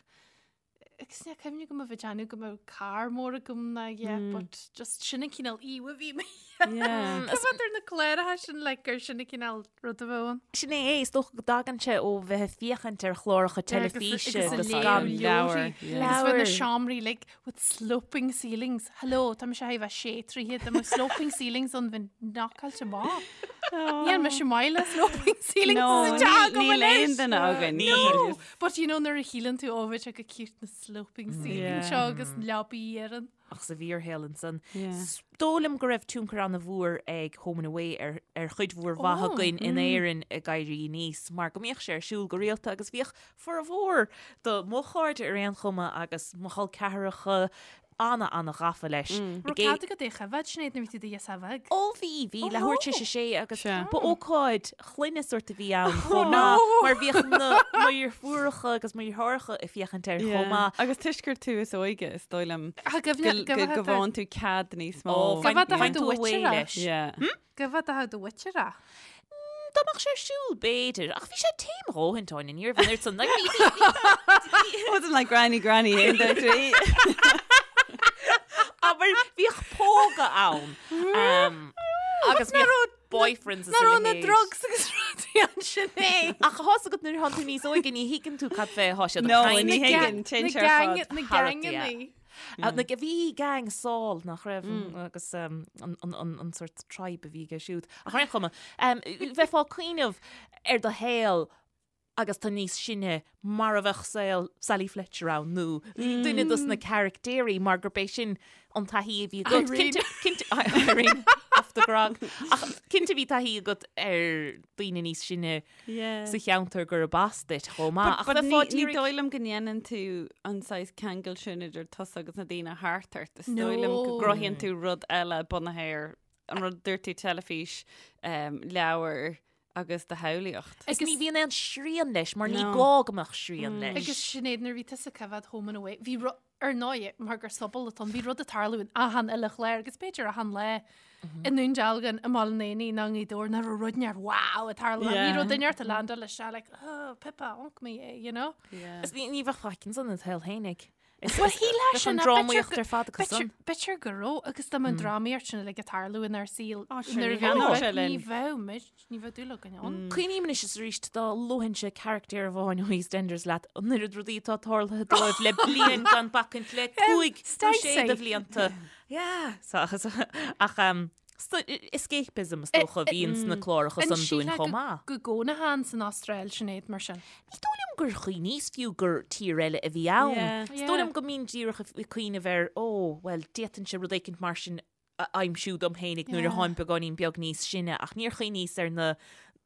Agus ní cuimhin go mbeadh déanamh go mbeadh carr mór agam ná yeah, but just sin an cineál íomhá a bhí mé. Coimhéad ar na cláracha sin like gur sin an cineál rud a bheadh ann. Sin é é, is dócha go dtagann sé ó bheith ag féachaint ar chláracha teilifíse agus gan leabhar. Agus bheith na seomraí like with sloping ceilings. Hello, tá mise a bheith sé troithe, tá mbeadh sloping ceilings ann bheinn knockáilte amach. Níl mise maith le sloping ceilings No, sa teach agam níl aon anois. duine againn. No, but you know nuair a shíleann tú ó bheadh sé go cute na sloping ceiling seo agus leabaí ar an. Ach sa bhfíorshaol ansan. Is dóigh liom go raibh tionchar an-mhór ag Home and Away ar ar chuid mhór mhaith againn in Éirinn ag éirí aníos mar go mbíodh sé ar siúl go rialta agus bhíodh formhór do mo chairde ar aon chuma agus mo chol ceathracha ana ana ghafa leis. Raibh cead agat é a choimhéad, Sinéad, nuair a bhí tú i do ghirseach bheag? Ó bhí, bhí, leathuair tar éis a sé agus Sea. ba ócáid chlainne sórt a bhí ann chomh maith mar bhíodh na mo dheirfiúracha agus mo dheartháireacha ag féachaint air chomh maith. Agus toisc gur tú is óige, is dóigh liom Ach go go go bhfaigheann tú cead níos mó. Ó, Go bhfad a faigheann do tú away mhuintir é. leis. Yeah. Go bhfad a do mhuintir é. Dá mbeadh sé ar siúl, b'fhéidir, ach bhí sé tame a dhóthain, Áine, ní raibh an oiread san, like, bhí, bhí, bhí, Wasn't like granny, granny, aon dó trí. Abair, bhíodh póga ann. Um, agus bhíodh boyfriends is Ná a raibh na leithéid. drugs agus rudaí ansin é. Ach tá's agat nuair atánn tú níos óige ní thuigeann tú cad fé thá siad ag No, caint. ní Na thuigeann, téann sé ar fad. Na thar gangannaí. Na bhí gang Saul nach raibh agus an sort tribe a bhí aige siúd. Ach ar aon chuma, bheifeá ag cuimhneamh ar do shaol agus tú níos sine mar a bheadh saol Sally Fletcher ann nó duine dos na caractéirí mar gurb é sin an taithí a bhí agat. Irene. Cinnte, Irene, off the grog. Ach cinnte bhí taithí agat ar daoine níos sine sa cheantar gurb as duit chomh maith. Ach But bheifeá ní d'iarraidh- dóigh liom go ndéanann tú an saghas ceangal sin idir tusa agus na daoine thart ort. Is dóigh liom go No. gcruthaíonn tú rud eile bunaithe ar an rud dúirt tú teilifís, um, leabhar agus do shamhlaíocht. Agus ní bhíonn aon srian leis mar ní No. gá go mbeadh srian leis. Agus Sinéad, nuair a bhí tusa ag coimhéad Home and Away, bhí ru- Ar ndóigh, mar gur sobal atá ann, bhí rud ag tarlú in achan uile chlár agus b'fhéidir achan lá i nDún Dealgan, i mBaile an Éanaigh nó i nGaoth Dobhair nach raibh rud inteacht wow ag tarlú. Bhí rud inteacht ag landáil isteach like, oh, Pippa, ionc mé é, you know? Is ní bheadh faic ansan id shaol fhéinig. Well, shílfeá Bheadh sin, an ach drámaíocht b'fhéidir ar fad acu san. B'fhéidir go raibh agus dá mbeadh an drámaíocht sin uilig ag tarlú inár saol Ó, sure, nuair a ní bheadh bheadh sé ní linn. bheadh muid, ní bheadh dúil againn ann. Cuimhním anois is arís dá luainnse carachtar amháin ó EastEnders leat, an oiread rudaí atá tarlaithe dóibh le bliain gan bacaint le cúig nó sé de bhlianta. Yeah, so, ach um, so, escapism is dócha a bhíonn sna cláracha An san dúinn sílfeá chomh maith. Go gcónaitheá san Astráil Sinéad mar sin. Ní dóigh liom gur chuimhníos fiú gur tír eile a bhí ann. Yeah. Is dóigh liom go mbínn díreach ag cuimhneamh ar, ó, bhuel, d'fhéadfainnse rud éicint mar sin a aimsiú dom fhéinig nuair a tháim beagáinín beag níos sine ach níor chuimhníos ar na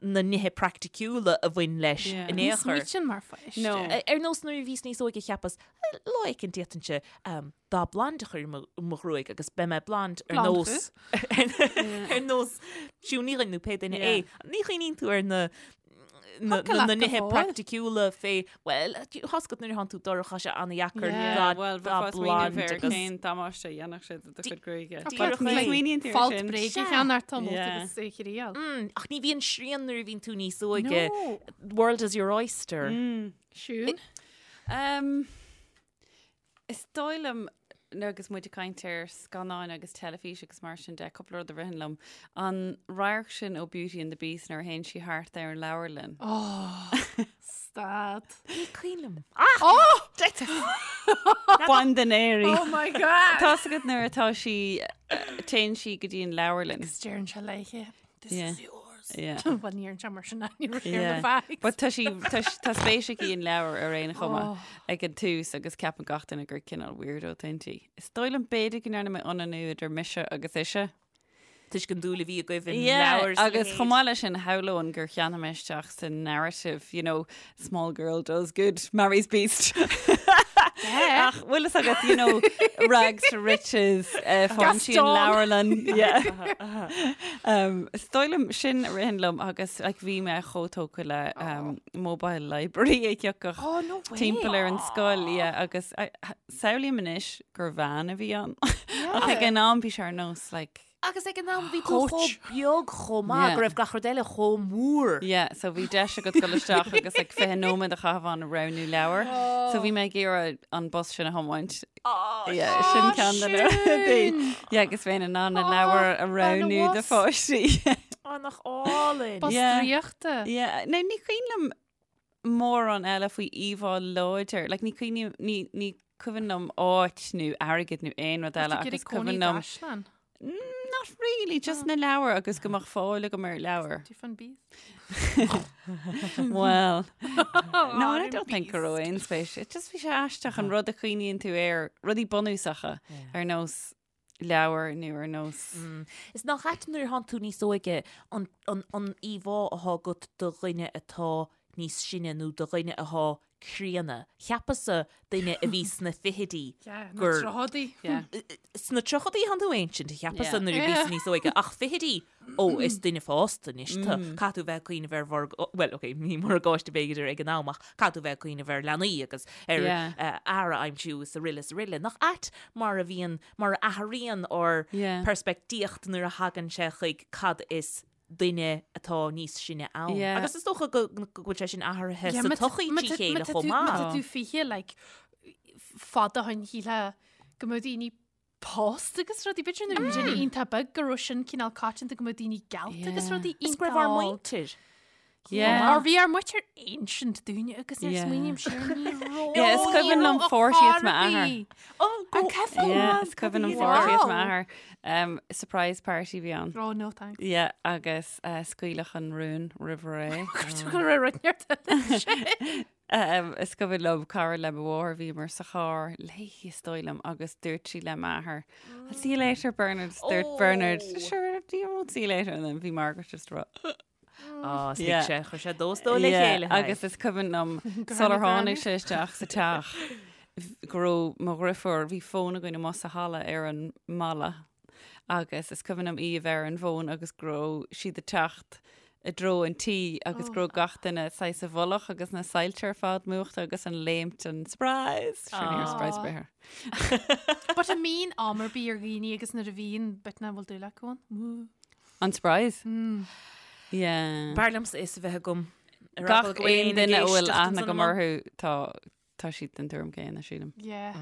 na nithe praiticiúla a bhain leis Yeah. in Ní aon chor. smaoitinn mar pháiste. No. Ar nós nuair a bhíos níos óige cheapas, lá éicint d'fhéadfainnse um, dath blonde a chur i mo, mo ghruaig agus beidh mé blonde ar Blonde nós ar nós Siún Ní Dhuinn nó pé duine Yeah. é. Ní chuimhníonn tú ar na na, Thiocfadh na, leat na go nithe fóill. praiticiúla fé, well, tá's agat nuair a thánn tú dorcha sé ana-dheacair Yeah, dath well, dath bheifeá ag smaoineamh blonde ar agus cén damáiste a dhéanfadh sé do do chuid gruaige. Díreach Ní é. smaoiníonn tú ar Folt sin. bréige Sea. cheann tá móta Yeah. agus é chriail. Mm, ach ní bhíonn srian nuair a bhíonn tú níos óige. No. World is your oyster. Siún. Um, is dóigh liom Agus muid ag caint ar scannáin agus teilifís agus mar sin de, cúpla rud a ritheann liom. An radharc sin ó Beauty and the Beast nuair a théann sí thart ar an leabharlann. Oh, stad. Ní cuimhin liom. Oh! Bain den éirí. Oh my God! Tá's agat nuair atá sí, téann sí go dtí an leabharlann. Agus deireann sé léithe, this Yeah. is yours. Yeah. Bhuel, ní deireann sé mar sin ní raibh sé ar Yeah. na fags. But tá sí tá sí- tá spéis aici in leabhar ar aon chuma Oh. ag an tús agus ceapann gach duine gur cineál weirdo atá inti. Is dóigh liom b'fhéidir go ndearna mé ionannú idir mise agus ise. Toisc an dúil a bhí agaibh in Yeah, leabhair agus chomh maith leis sin shamhlóinn gur cheannaigh mé isteach sa narrative, you know, small girl does good, marries beast. Ach bhfuil fhios agat, you know, rags to riches, uh, faigheann sí an Gaston. leabharlann. Yeah. Um, is dóigh liom sin a ritheann liom agus like, bhí mé chomh tógtha le um, mobile library a thiocfadh Oh, no way. timpeall ar an scoil yeah, agus I- samhlaím anois gur veain a bhí ann. Ach ag an am bhí sé ar nós like, Agus ag an am bhí tú Coach. chomh beag chomh maith Yeah. go raibh gach rud eile chomh mór. Yeah, so bhí deis agat dul isteach agus like 20 nóiméad a chaitheamh ann ag roghnú leabhar. So bhí mé ag iarraidh an bus sin a thiomáint. Yeah, sin ceann de na rudaí. Yeah, agus bheinn in ann na leabhair a roghnú do bus. pháistí. Á nach álainn. Bus Yeah. draíochta. Yeah, no, ní cuimhin liom mórán eile faoi íomhá láidir. Like, ní cuimhin ní, ní cuimhin liom áit nó airgead nó aon rud eile Ag agus iarraidh cónaí cuimhin liom gcaisleán. Not really, just na leabhair agus go mbeadh fáil agam ar leabhar. Do you find bees? Well, no, I don't think go raibh aon spéis. It just bhí sé aisteach an rud a chuimhníonn tú air, rudaí bunúsacha ar nós leabhar nó ar nós. Is nach ait nuair atánn tú níos óige an, an, an íomhá atá agat de dhuine atá níos sine nó de dhuine atá críonna. Cheapas-sa duine a bhí sna fichidí Yeah, na gur tríochaidí. Yeah. Sna tríochaidí atánn tú ancient, cheapas-sa Yeah. nuair a bhíos níos óige, ach fichidí, ó, is duine fásta anois tú. Caithfidh tú bheith ag cuimhneamh ar mhorg, bhuel, ok, ní morgáiste b'fhéidir ag an am, ach caithfidh tú bheith ag cuimhneamh ar leanaí agus ar Yeah. eh, fhear a aimsiú is araile is araile. Nach ait mar a bhíonn, mar a athraíonn ár Yeah. peirspictíocht nuair a thagann sé chuig cad is duine atá níos sine ann. Yeah. Agus is dócha go go bhfuil sé sin athraithe Yeah, sa má tá- tsochaí má trí tá- chéile má tá chomh tú- Má maith. tá tú 20, like, fada ó shin shílfeá go mbeadh daoine pósta agus rudaí. B'fhéidir nuair a bhí daoine iontach beag go raibh sin cineál coitianta go mbeadh daoine geallta agus Yeah. rudaí Is go raibh ár iontach óg. muintir. Yeah. Or bhí ár muintir ancient dúinne agus nuair a Yeah. smaoiním siar ní raibh. Yeah, is cuimhin liom 40th m'athair. Oh, go Yeah, is cuimhin liom 40th m'athair. Um, surprise party bhí ann. Oh, no thanks. Yeah, agus uh, scaoileadh an rún roimh ré. Go raibh rud neart eile. Um, is cuimhin liom cara le mo mháthair bhíomar sa charr léi is dóigh liom agus dúirt sí le m'athair. I'll see you later, Bernard. Dúirt Bernard, Oh. sure, you won't see you later. And then bhí Margaret just rá. Á, Yeah. yeah. sé, chuir sé dó is dó le Yeah, chéile. Agus is cuimhin liom sular tháinig sé isteach sa teach go raibh mo dheirfiúr bhí fón againn amuigh sa halla ar an mballa agus is cuimhin liom í a bheith ar an bhfón agus go raibh siad ag teacht i dtreo an tí agus go raibh gach duine saghas i bhfolach agus na soilse ar fad múchta agus an léimt an surprise. Sure, ní raibh surprise ar bith air. But an mbíonn am ar bith ar dhaoine agus nuair a bhíonn bit na bhfuil dúil acu ann. Mm. An surprise? Yeah. B'fhearr liomsa is a bheith agam. Ar Gach eagla go bhfuil aon éinne ag duine a bhfuil éisteacht aithne ansan agam amach. orthu tá tá siad den tuairim céanna sílim. Yeah.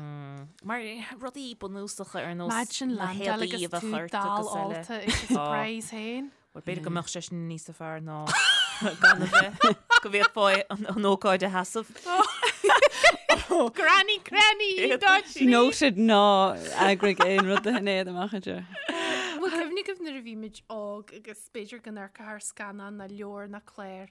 Mar rudaí bunúsacha ar nós Imagine na landáil héadaí agus a bheith tú ort dall agus eile. ólta ag an surprise féin. Bhuel, b'fhéidir go mbeadh sé sin níos fearr ná gan a bheith go bhféadfá an an ócáid a sheasamh. Granny, granny, dodgy. Noted ná eagraigh aon rud do Shinéad amach anseo. Bhfuil cuimhne agaibh nuair a bhí muid óg agus b'fhéidir go n-amharcfá ar scannán ná leabhar ná clár,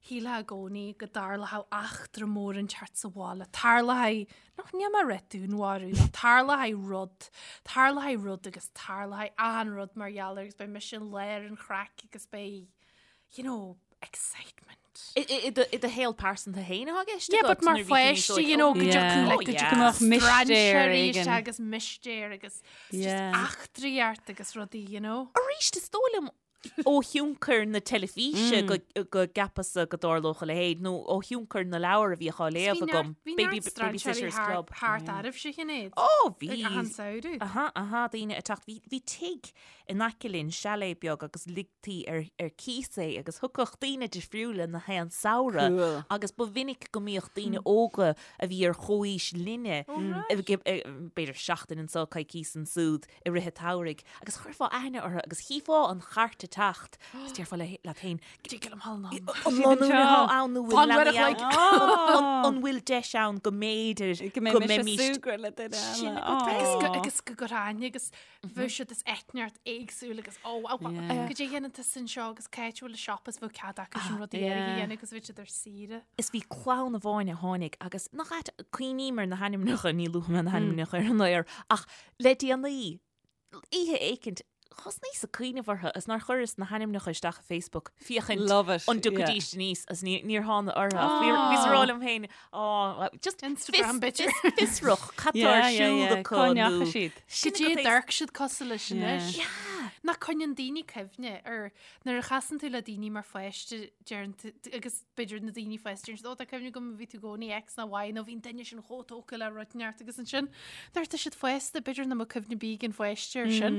shílfeá i gcónaí go dtarlódh eachtra mór inteacht sa bhaile, tarlóidh, nach níl mé ag rá dúnmharú, nó tarlóidh rud, tarlóidh rud agus tarlóidh achan rud mar gheall air agus beidh mise i lár an chraic agus beidh, you know, excitement. I i- i do i do shaol pearsanta féin atá i gceist Yeah, agat but mar nuair a bhí tú níos pháiste, óige? you know, go Yeah. dtiocfadh like, Oh, go yeah. Go mbeadh mistéir strainséirí éigin. isteach agus mistéir agus just Yeah. eachtraí ort agus rudaí, you know. Arís is dóigh liom Ó thionchar na teilifíse go gceapas-sa go dtarlódh a leithéid, nó ó thionchar na leabhar a bhíodh á léamh agam, Baby Babysitters Club. Thart oraibhse a Shinéad. Ó, bhí. Ag achan samhradh. Aha, aha, daoine ag teacht. Bhí, bhí tigh in aice linn, chalet beag, agus ligtí ar, ar cíos é, agus thiocfadh daoine difriúla na haon samhradh. Cool. Agus ba mhinic go mbíodh daoine óga a bhí ar chomhaois linne, b'fhéidir seachtain anso, coicís ansúd, i rith an tsamhraidh agus chuirfeá aithne orthu agus chífeá an chairt ag teacht agus déarfá leat féin, Dtig liom thall ann. An lánúin atá ann nó bhfuil Fan leanaí uair a ann? An bhfuil deis ann go mb'fhéidir Go mbeidh mise ag súgradh le duine Sin eile. agat Agus go, agus go gcuirfeá aithne agus bheadh siad as eitneacht éagsúil agus ó, ó, ó, Yeah. goidé a dhéanann tusa anseo agus cá háit a bhfuil an siopa is bheadh cead acu sin rudaí Yeah. áirithe a dhéanamh agus bheadh siad ar saoire. Is bhí clann amháin a tháinig agus nach ait, cuimhním ar na hainmneacha, ní luafaidh mé na hainmneacha ar an aer, ach Le déanaí, oíche éicint, thosnaíos ag cuimhneamh orthu is nár chuireas na hainmneacha isteach i Facebook féachaint Love it, an dtiocfaidís aníos is níor thána orthu ach bhíos ag rá liom féin, á, just Instagram fios, b'fhéidir. fiosrach, cad tá ar siúl acu Cá nó ndeachaigh siad? Sin Goidé agat é. d'amharc siad cosúil leis anois. Yeah. Nach coinníonn daoine cuimhne ar nuair a chasann tú le daoine mar pháiste deireann tú agus b'fhéidir na daoine fásta deireann siad ó tá cuimhne agam bhí tú i gcónaí X nó Y nó bhí an duine sin chomh tógtha le rud inteacht agus ansin nuair atá siad fásta b'fhéidir nach mbeadh cuimhne ar bith ag an pháiste ar sin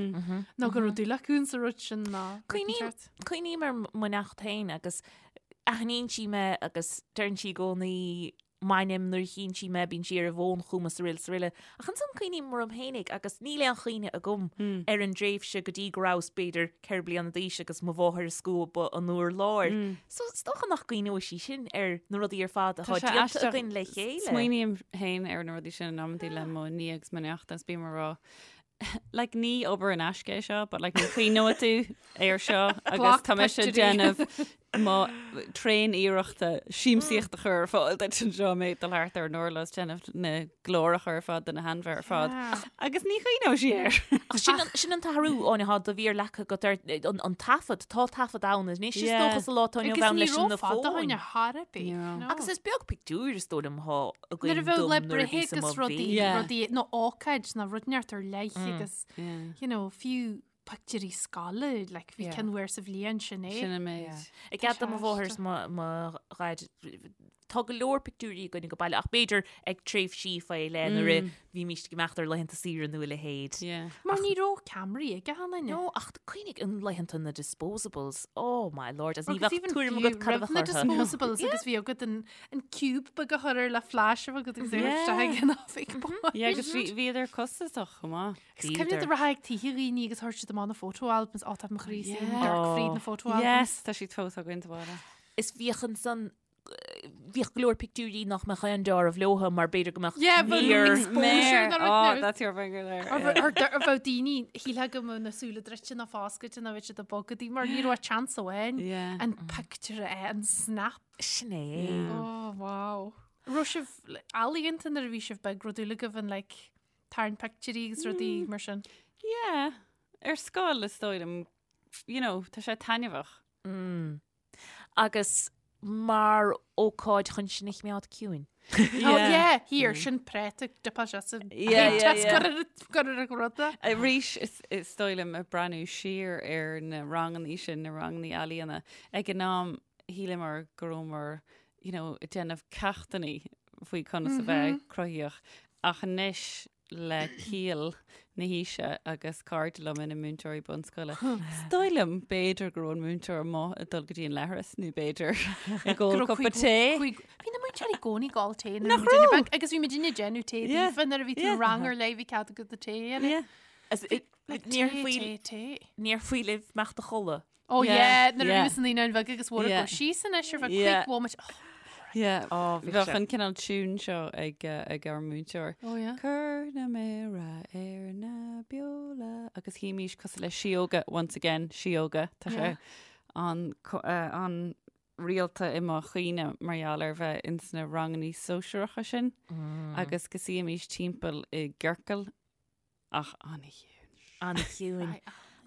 nó go raibh dúil acu sa rud sin ná rud inteacht. Cuimhním ar mo neacht féin agus aithníonn sí mé agus deireann sí i gcónaí m'ainm nuair a chíonn sí mé, bíonn sí ar an bhfón chugam is araile is araile. Ach ansan cuimhním orm fhéinig agus níl aon chuimhne agam ar an dtréimhse go dtí go rabhas b'fhéidir 4 bliana d'aois agus mo mháthair ag scuabadh an urláir. So is dócha nach gcuimhneoidh sí sin ar na rudaí ar fad atá Tá sé déanta aisteach. againn le chéile. Smaoiním féin ar na rudaí sin in amantaí le mo nia agus mo neacht agus bím ag rá like ní obair in aisce é seo, but like ní chuimhneoidh tú air seo agus Glac tá mise ag pictiúirí. déanamh mo tréan-iarrachta siamsaíocht a chur ar fáil duit anseo mé ag dul thart ar an urlár is déanamh na gcláracha ar fad do na hainmhithe ar fad. Agus ní chuimhneoidh sí air. Ach sin an, sin an t-athrú Áine atá do mhír leagtha agat ar an, an taifead, tá taifead ann anois is Yeah. dócha sa lá atá inniu Agus ann ní leis raibh na fada fóin. Áine thar ar bith. Ní raibh. No. Agus is beag pictiúr is dóigh liom atá Nuair a againn bheadh dom le nuair a breithe bhíos i mo agus rudaí, mhéar. Yeah. rudaí nó ócáid nó rud inteacht ar leith agus Yeah. you know, fiú pictiúirí scoile, like, bhí Yeah. ceann uair sa bhliain sin é. Sin an méid. Yeah. I gcead do mo mháthair is mo mo dhaid tá go leor pictiúirí againn ag baile ach b'fhéidir ag tréimhsí faoi leith nuair a bhímís ag imeacht ar laethanta saoire nó a leithéid. Yeah. Mar ní raibh ceamaraí ag achan duine. No, ach cuimhnigh an laethanta na disposables. Oh my lord, as ní Agus bheadh even tuairim fiú agat cad a roimh bheadh na orthu. disposables agus bhí agat an, an cube beag a chur air le flash a bheith agat agus é Yeah. isteach ag an oifig boy. Yeah, agus bhí bhíodar costasach chomh maith. Agus cuimhnigh do rachfá ag tithe dhaoine agus thabhairt siad amach na photo albums, ó tá mo chroí sa Yeah. dark fríd na photo albums. Yes, tá siad fós againn sa bhaile. Is bhíodh ansan bhíodh go leor pictiúirí nach mbeadh aon deáramh leotha mar b'fhéidir go mbeadh Yeah, bheadh méar exposure Méar. nó rud Oh, nó- that's your finger there. Ar yeah. ar ar bheadh daoine shílfeá go mbeadh na súile druidte nó foscailte nó bheadh siad ag bogadh mar ní raibh chance amháin Yeah. an picture a an snap. Sin é. Yeah. Oh wow. Raibh sibh ealaíonta nuair a bhí sibh beag raibh dúil agaibh in like tarraingt pictiúirí agus rudaí mar sin. Yeah. Ar scoil is dóigh liom, you know, tá sé taitneamhach. Mm. Agus mar ócáid chun sinn a choimeád ciúin. Oh yeah, here, sin práta dipá sé sa Yeah, yeah, yeah. Gur ar ruda. Arís is is dóigh liom ag breathnú siar ar na rangannaí sin, na rangannaí ealaíona, ag an am shíleamar go rabhamar, you know, ag déanamh ceachtannaí faoi conas a bheith cruthaíoch. Ach anois le ciall na haoise agus cairde liom ina múinteoirí bunscoile, is dóigh liom b'fhéidir go raibh an múinteoir amuigh ag dul go dtí an leithreas nó b'fhéidir ag ól Go raibh cupa tae. Bhí na múinteoirí i gcónaí ag ól tae nuair a Nach bhí muidinne raibh? beag, agus bhí muidinne ag déanamh tae Yeah. daofa nuair a bhí tú Yeah. rang ar leith bhí cead agat do tae a dhéanamh. Yeah. As it- Like Níor tae, faoi tae, tae. níor faoi libh imeacht a chodladh. Oh Yeah, yeah, nuair a yeah. bhí mise naíonáin bheaga agus mhór Yeah. go síos anois ar feadh Yeah. cúig bhomaite. Oh, Yeah. Oh, bhí Bheadh sé. an cineál tune seo ag eh, ag ár múinteoir. oh yeah. Cuir na méara ar na beola agus shuímís cosúil le síóga once again síóga tá sé Yeah. an co- eh, an rialta i mo chuimhne mar gheall ar bheith ins na rangannaí sóisearacha sin agus go suímís timpeall i gciorcal ach an-chiúin. An-chiúin. Ai,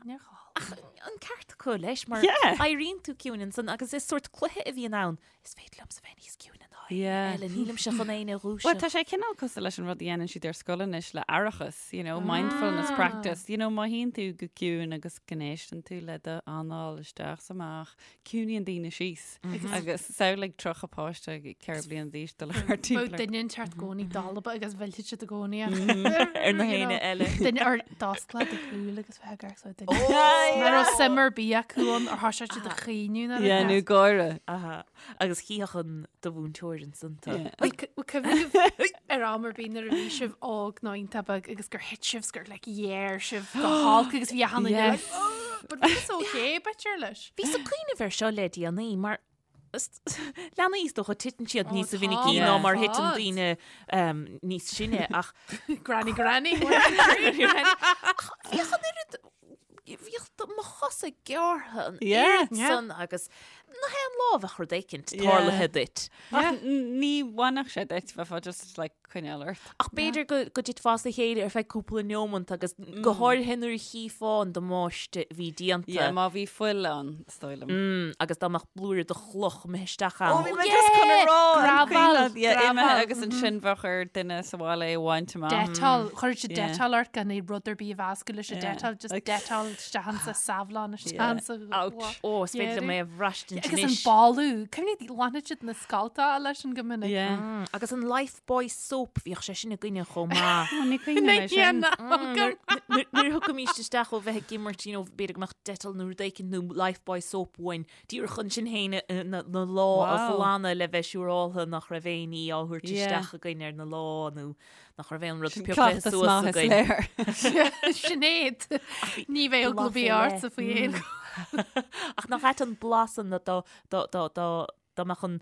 níor chall. Ach an ceart acu leis mar Yeah. éiríonn tú ciúin ansan agus is sórt cluiche a bhíonn ann. Is féidir liomsa bheith níos ciúine ná éinne Yeah. eile, nílimse chun éinne a Well, dhúiseacht. tá sé cineál cosúil leis an rud a dhéanann siad ar scoil anois le aireachas, you know, mindfulness practice. You know, má shuíonn tú go ciúin agus go n-éisteann tú le do anáil isteach is amach, ciúnaíonn daoine síos. Agus samhlaigh 30 páiste 4 bliana d'aois dul thart Bheadh timpeall ar- duine inteacht i gcónaí dalba agus mhillfeadh siad i gcónaí. Ar na héinne eile. Duine ar d'osclódh do shúil agus bheith ag amharc so duine. Yeah. Nach raibh suim ar bith acu ann ar thoisigh siad ag caoineadh nuair a Yeah, nó bheas. gáire. Aha. Agus chífeadh an do mhúinteoir ansan tú. Yeah. Bhfuil cuimhne agaibh ar am ar bith nuair a bhí sibh óg nó iontach beag agus gur thit sibh 's gur like ghéar sibh go holc agus bhí achan duine like Yes. "Oh," but bhí sé okay b'fhéidir leis. Bhíos ag cuimhneamh air seo le déanaí mar leanaí is dócha titeann siad Ó, níos tá, mhinicí ná mar thiteann fad. daoine níos sine ach Granny granny. Ach bhíodh an oiread bhíodh mo chosa gearrtha an Yeah. oiread san agus nach aon lá a bheadh rud éicint Yeah. tarlaithe duit. Ach ní bhainfeadh sé duit, bheifeá just like coinneáil ort. Ach b'fhéidir go go dtitfeá as a chéile ar feadh cúpla neomant agus go háirithe nuair a chífeá an damáiste a bhí déanta. Yeah, má bhí fuil ann, is dóigh liom. Mm, agus dá mbeadh blúire de chloch imithe isteach ann. Ó, bhí mé just chun a rá, an Gravel, cuimhin leat, yeah, imithe gravel, agus ansin bheadh ar duine sa bhaile é a bhaint amach. Dettol, chuir siad Yeah. Dettol ort gan é rud ar bith a mheascadh leis an Yeah. Dettol, just Like- Dettol isteach ansa Savlon isteach Yeah. ansa. Ouch. Ó, is féidir liom é a bhraistint Agus an anois. boladh, cuimhnigh ghlanfadh siad na scallta leis an go minic. Yeah. Mm, agus an Lifebuoy soap, bhíodh sé sin againne chomh maith. Ó, ní cuimhin liom é sin. Nuair nuair a thiocfaimís isteach ó bheith ag imirt, you know, b'fhéidir go mbeadh Dettol nó rud éicint nó Lifebuoy soap uainn, díreach chun sinn féin na na lámha a Wow. ghlanadh le bheith siúráltha nach raibh aon ní á thabhairt Yeah. isteach againn ar na lámha nó nach raibh aon rud Sin pioctha cleachtas suas maith is againn. léir. Sinéad, ní bheidh eagla blas bith ar leith. ortsa faoi aon Ach nach ait an blas an dá dá dá dá Dá mbeadh an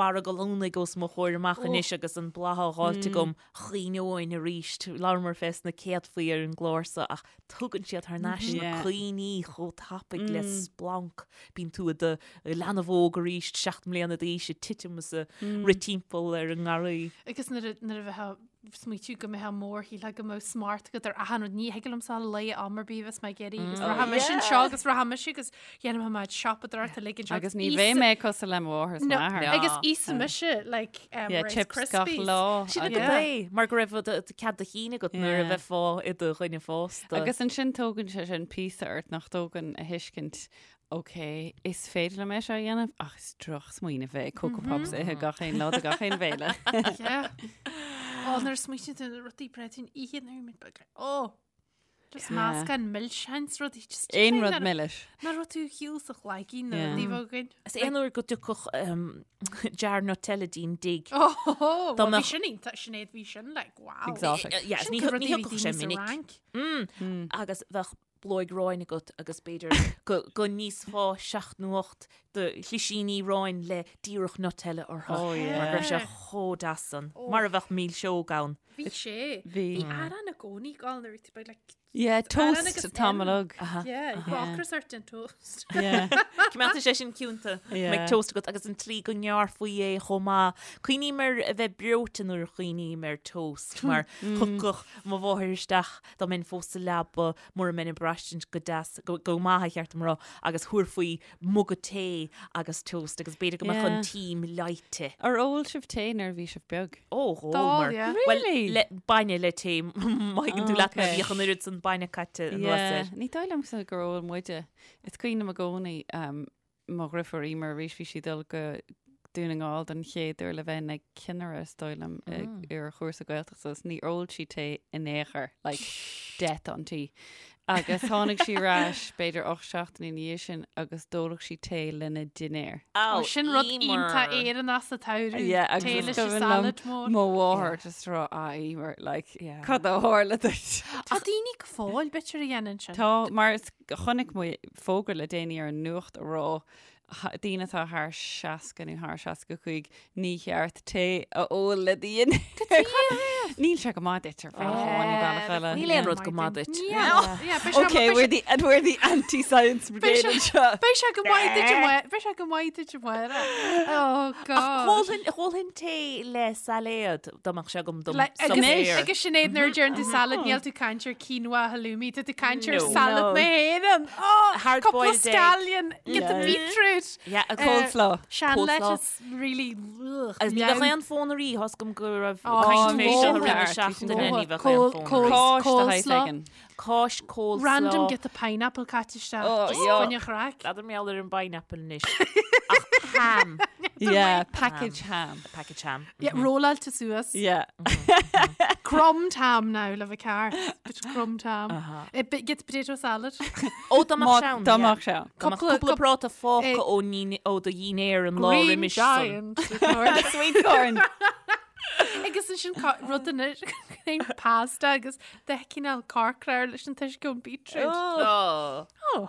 barra gallúnaigh os mo chomhair amach anois agus an blas á dh'fháilt agam, chuimhneoinn arís. Labhramar fés na céadfaí ar an gclár so ach tugann siad thar n-ais na cuimhní chomh tapaidh le splanc. Bíonn tú i do leanbh óg arís, 7 mbliana d'aois, ag titim is ag rith timpeall ar an ngarraí. Agus nuair a bheifeá ag smaoitiú go mbeifeá mór, shílfeá go mbeadh smacht agat ar achan rud. Ní thig liomsa a luí am ar bith bheas mé ag iarraidh agus rachaidh mise anseo agus rachaidh mise agus dhéanfaidh mé siopadóireacht uilig anseo. Agus ní bheidh mé cosúil le mo mháthair is m'athair. Agus íosfaidh mise like um, Yeah, Rice chips gach Krispies. lá. Sin agus- agat é, mar go raibh cead do chinn agat nuair a Yeah. bheifeá i do dhuine fásta. Agus ansin tógann sé sin píosa ort nach dtógann a thuiscint Ok, is féidir liom é seo a dhéanamh ach is drochsmaoineamh é Coco Pops a ithe gach aon lá de gach aon bhéile. Yeah. Ó, nuair a smaoitíonn tú ar na rudaí breá a ithe nuair a bhí muid beag. Ó! Just meascán milseáin 's rudaí just Aon rud milis. Nach raibh tú shiúl sa chlaigín na Yeah. rudaí bheag againn. Is aon uair go dtiocfadh jar Nutella dínn dtig. Ó, Dá well, bhí mbeadh- sin iontach, Sinéad, bhí sin like, wow. Exotic. Yeah, Sin ní go rudaí ní a bhí thiocfadh sé daoine sa minic. Fhrainc. Agus bheadh blóig aráin agat agus b'fhéidir go go n-íosfá seacht nó ocht de shlisíní aráin le díreach Nutella orthu. Oh, yeah. Mar go raibh sé chomh deas san. Mar a bheadh milseog ann. Bhí sé. Bhí. Bhí arán i gcónaí ag gabháil nuair a bhí tú beag, like, Yeah, arán toast agus tamall im. óg. Yeah, ocras ort den toast. Yeah. Coimeádfaidh sé sin ciúnta. Yeah. Mbeidh toast agat agus an tslí go ngearrfaí é chomh maith. Cuimhním ar a bheith breoite nuair a chuimhním ar toast mar thiocfadh mo mháthair isteach dá mbeinn fós sa leaba mura mbeinn ag braistint go deas, go, go maith ba cheart dom a rá, agus thabharfaí muga tae agus toast agus b'fhéidir go mbeadh an Yeah. tím leáite. Ar ól sibh tae nuair a bhí sibh beag? Ó, dh'ól D'ól, mar. yeah. Well, Really? le, bainne le tae, má thuigeann tú Oh, leat mé, okay. bhíodh an oiread san bainne caite anuas Yeah. air. Ní dóigh liomsa gur ól muide. Is cuimhin liom i gcónaí um, mo dheirfiúr Emer arís bhí sí ag dul go Dún na nGall don chéad uair le bheith ina cinnire is dóigh liom ar chúrsa Gaeltachta agus níor ól sí tae in aon chor, like death on tea. Agus tháinig sí ar ais b'fhéidir 8 seachtaine ina dhiaidh sin agus d'ólfadh sí tae lena dinnéar. Ó, Sin rud Emer. iontach Éireannach sa tsamhradh. Yeah, agus Tae is leis an cuimhin liom salad mór. Mo mháthair just rá ah Emer, like Yeah. cad a tharla duit? Tá daoine go fóill b'fhéidir a dhéanann sin. Tá mar is chonaic mé fógra le déanaí ar an nuacht a rá. Daoine atá thar 60 nó thar 65, ní cheart tae a ól le do dhinnéar. Níl sé go maith duit ar bhealach amháin nó bealach eile. Níl aon rud go maith duit. Okay, we're the, and we're the anti-science brigade anseo. Beidh sé go maith duit amárach. Beidh sé go maith duit amárach. Oh God. Ólfainn tae le sailéad dá mbeadh sé agam dom suipéar. Agus Sinéad nuair a deireann tú salad níl tú ag caint ar quinoa halloumi, tá tú ag caint ar salad na hÉireann. Oh, cúpla scallion, get the beetroot. Yeah, a coleslaw. Sean lettuce, really. Agus ní bheadh aon fonn ar ithe, thost agam go raibh caint fé seo i rith na seachtaine, ní bheadh aon fonn ar ithe. Coleslaw. Cáis coleslaw. Random get the pineapple caite isteach. Oh, Just fá choinne craic. N'fheadar mar gheall ar an bpineapple anois. Ach ham. Yeah, package ham. Package ham. Yeah, rolláilte suas. Yeah. Crumbed ham now le bheith ceart. Bit of crumbed ham. Uh-huh. Get potato salad. Ó dá mbeadh sé ann. Dá mbeadh sé ann. Dá mbeadh cúpla práta fágtha ó ó do dhinnéar an lá Green roimis san. giant. Sweet corn. Agus ansin rud anois pasta agus de chineál corcra leis an t-uisce ón beetroot. Oh. Oh.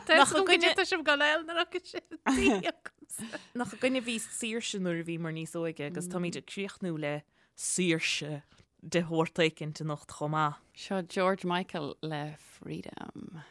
Nach Nach gcuid tá sibh go léil na sin. Nach againne a bhí saoirse nuair a bhíomar níos óige agus táimid ag críochnú le saoirse de shórt éicint anocht chomh maith. Seo George Michael le Freedom.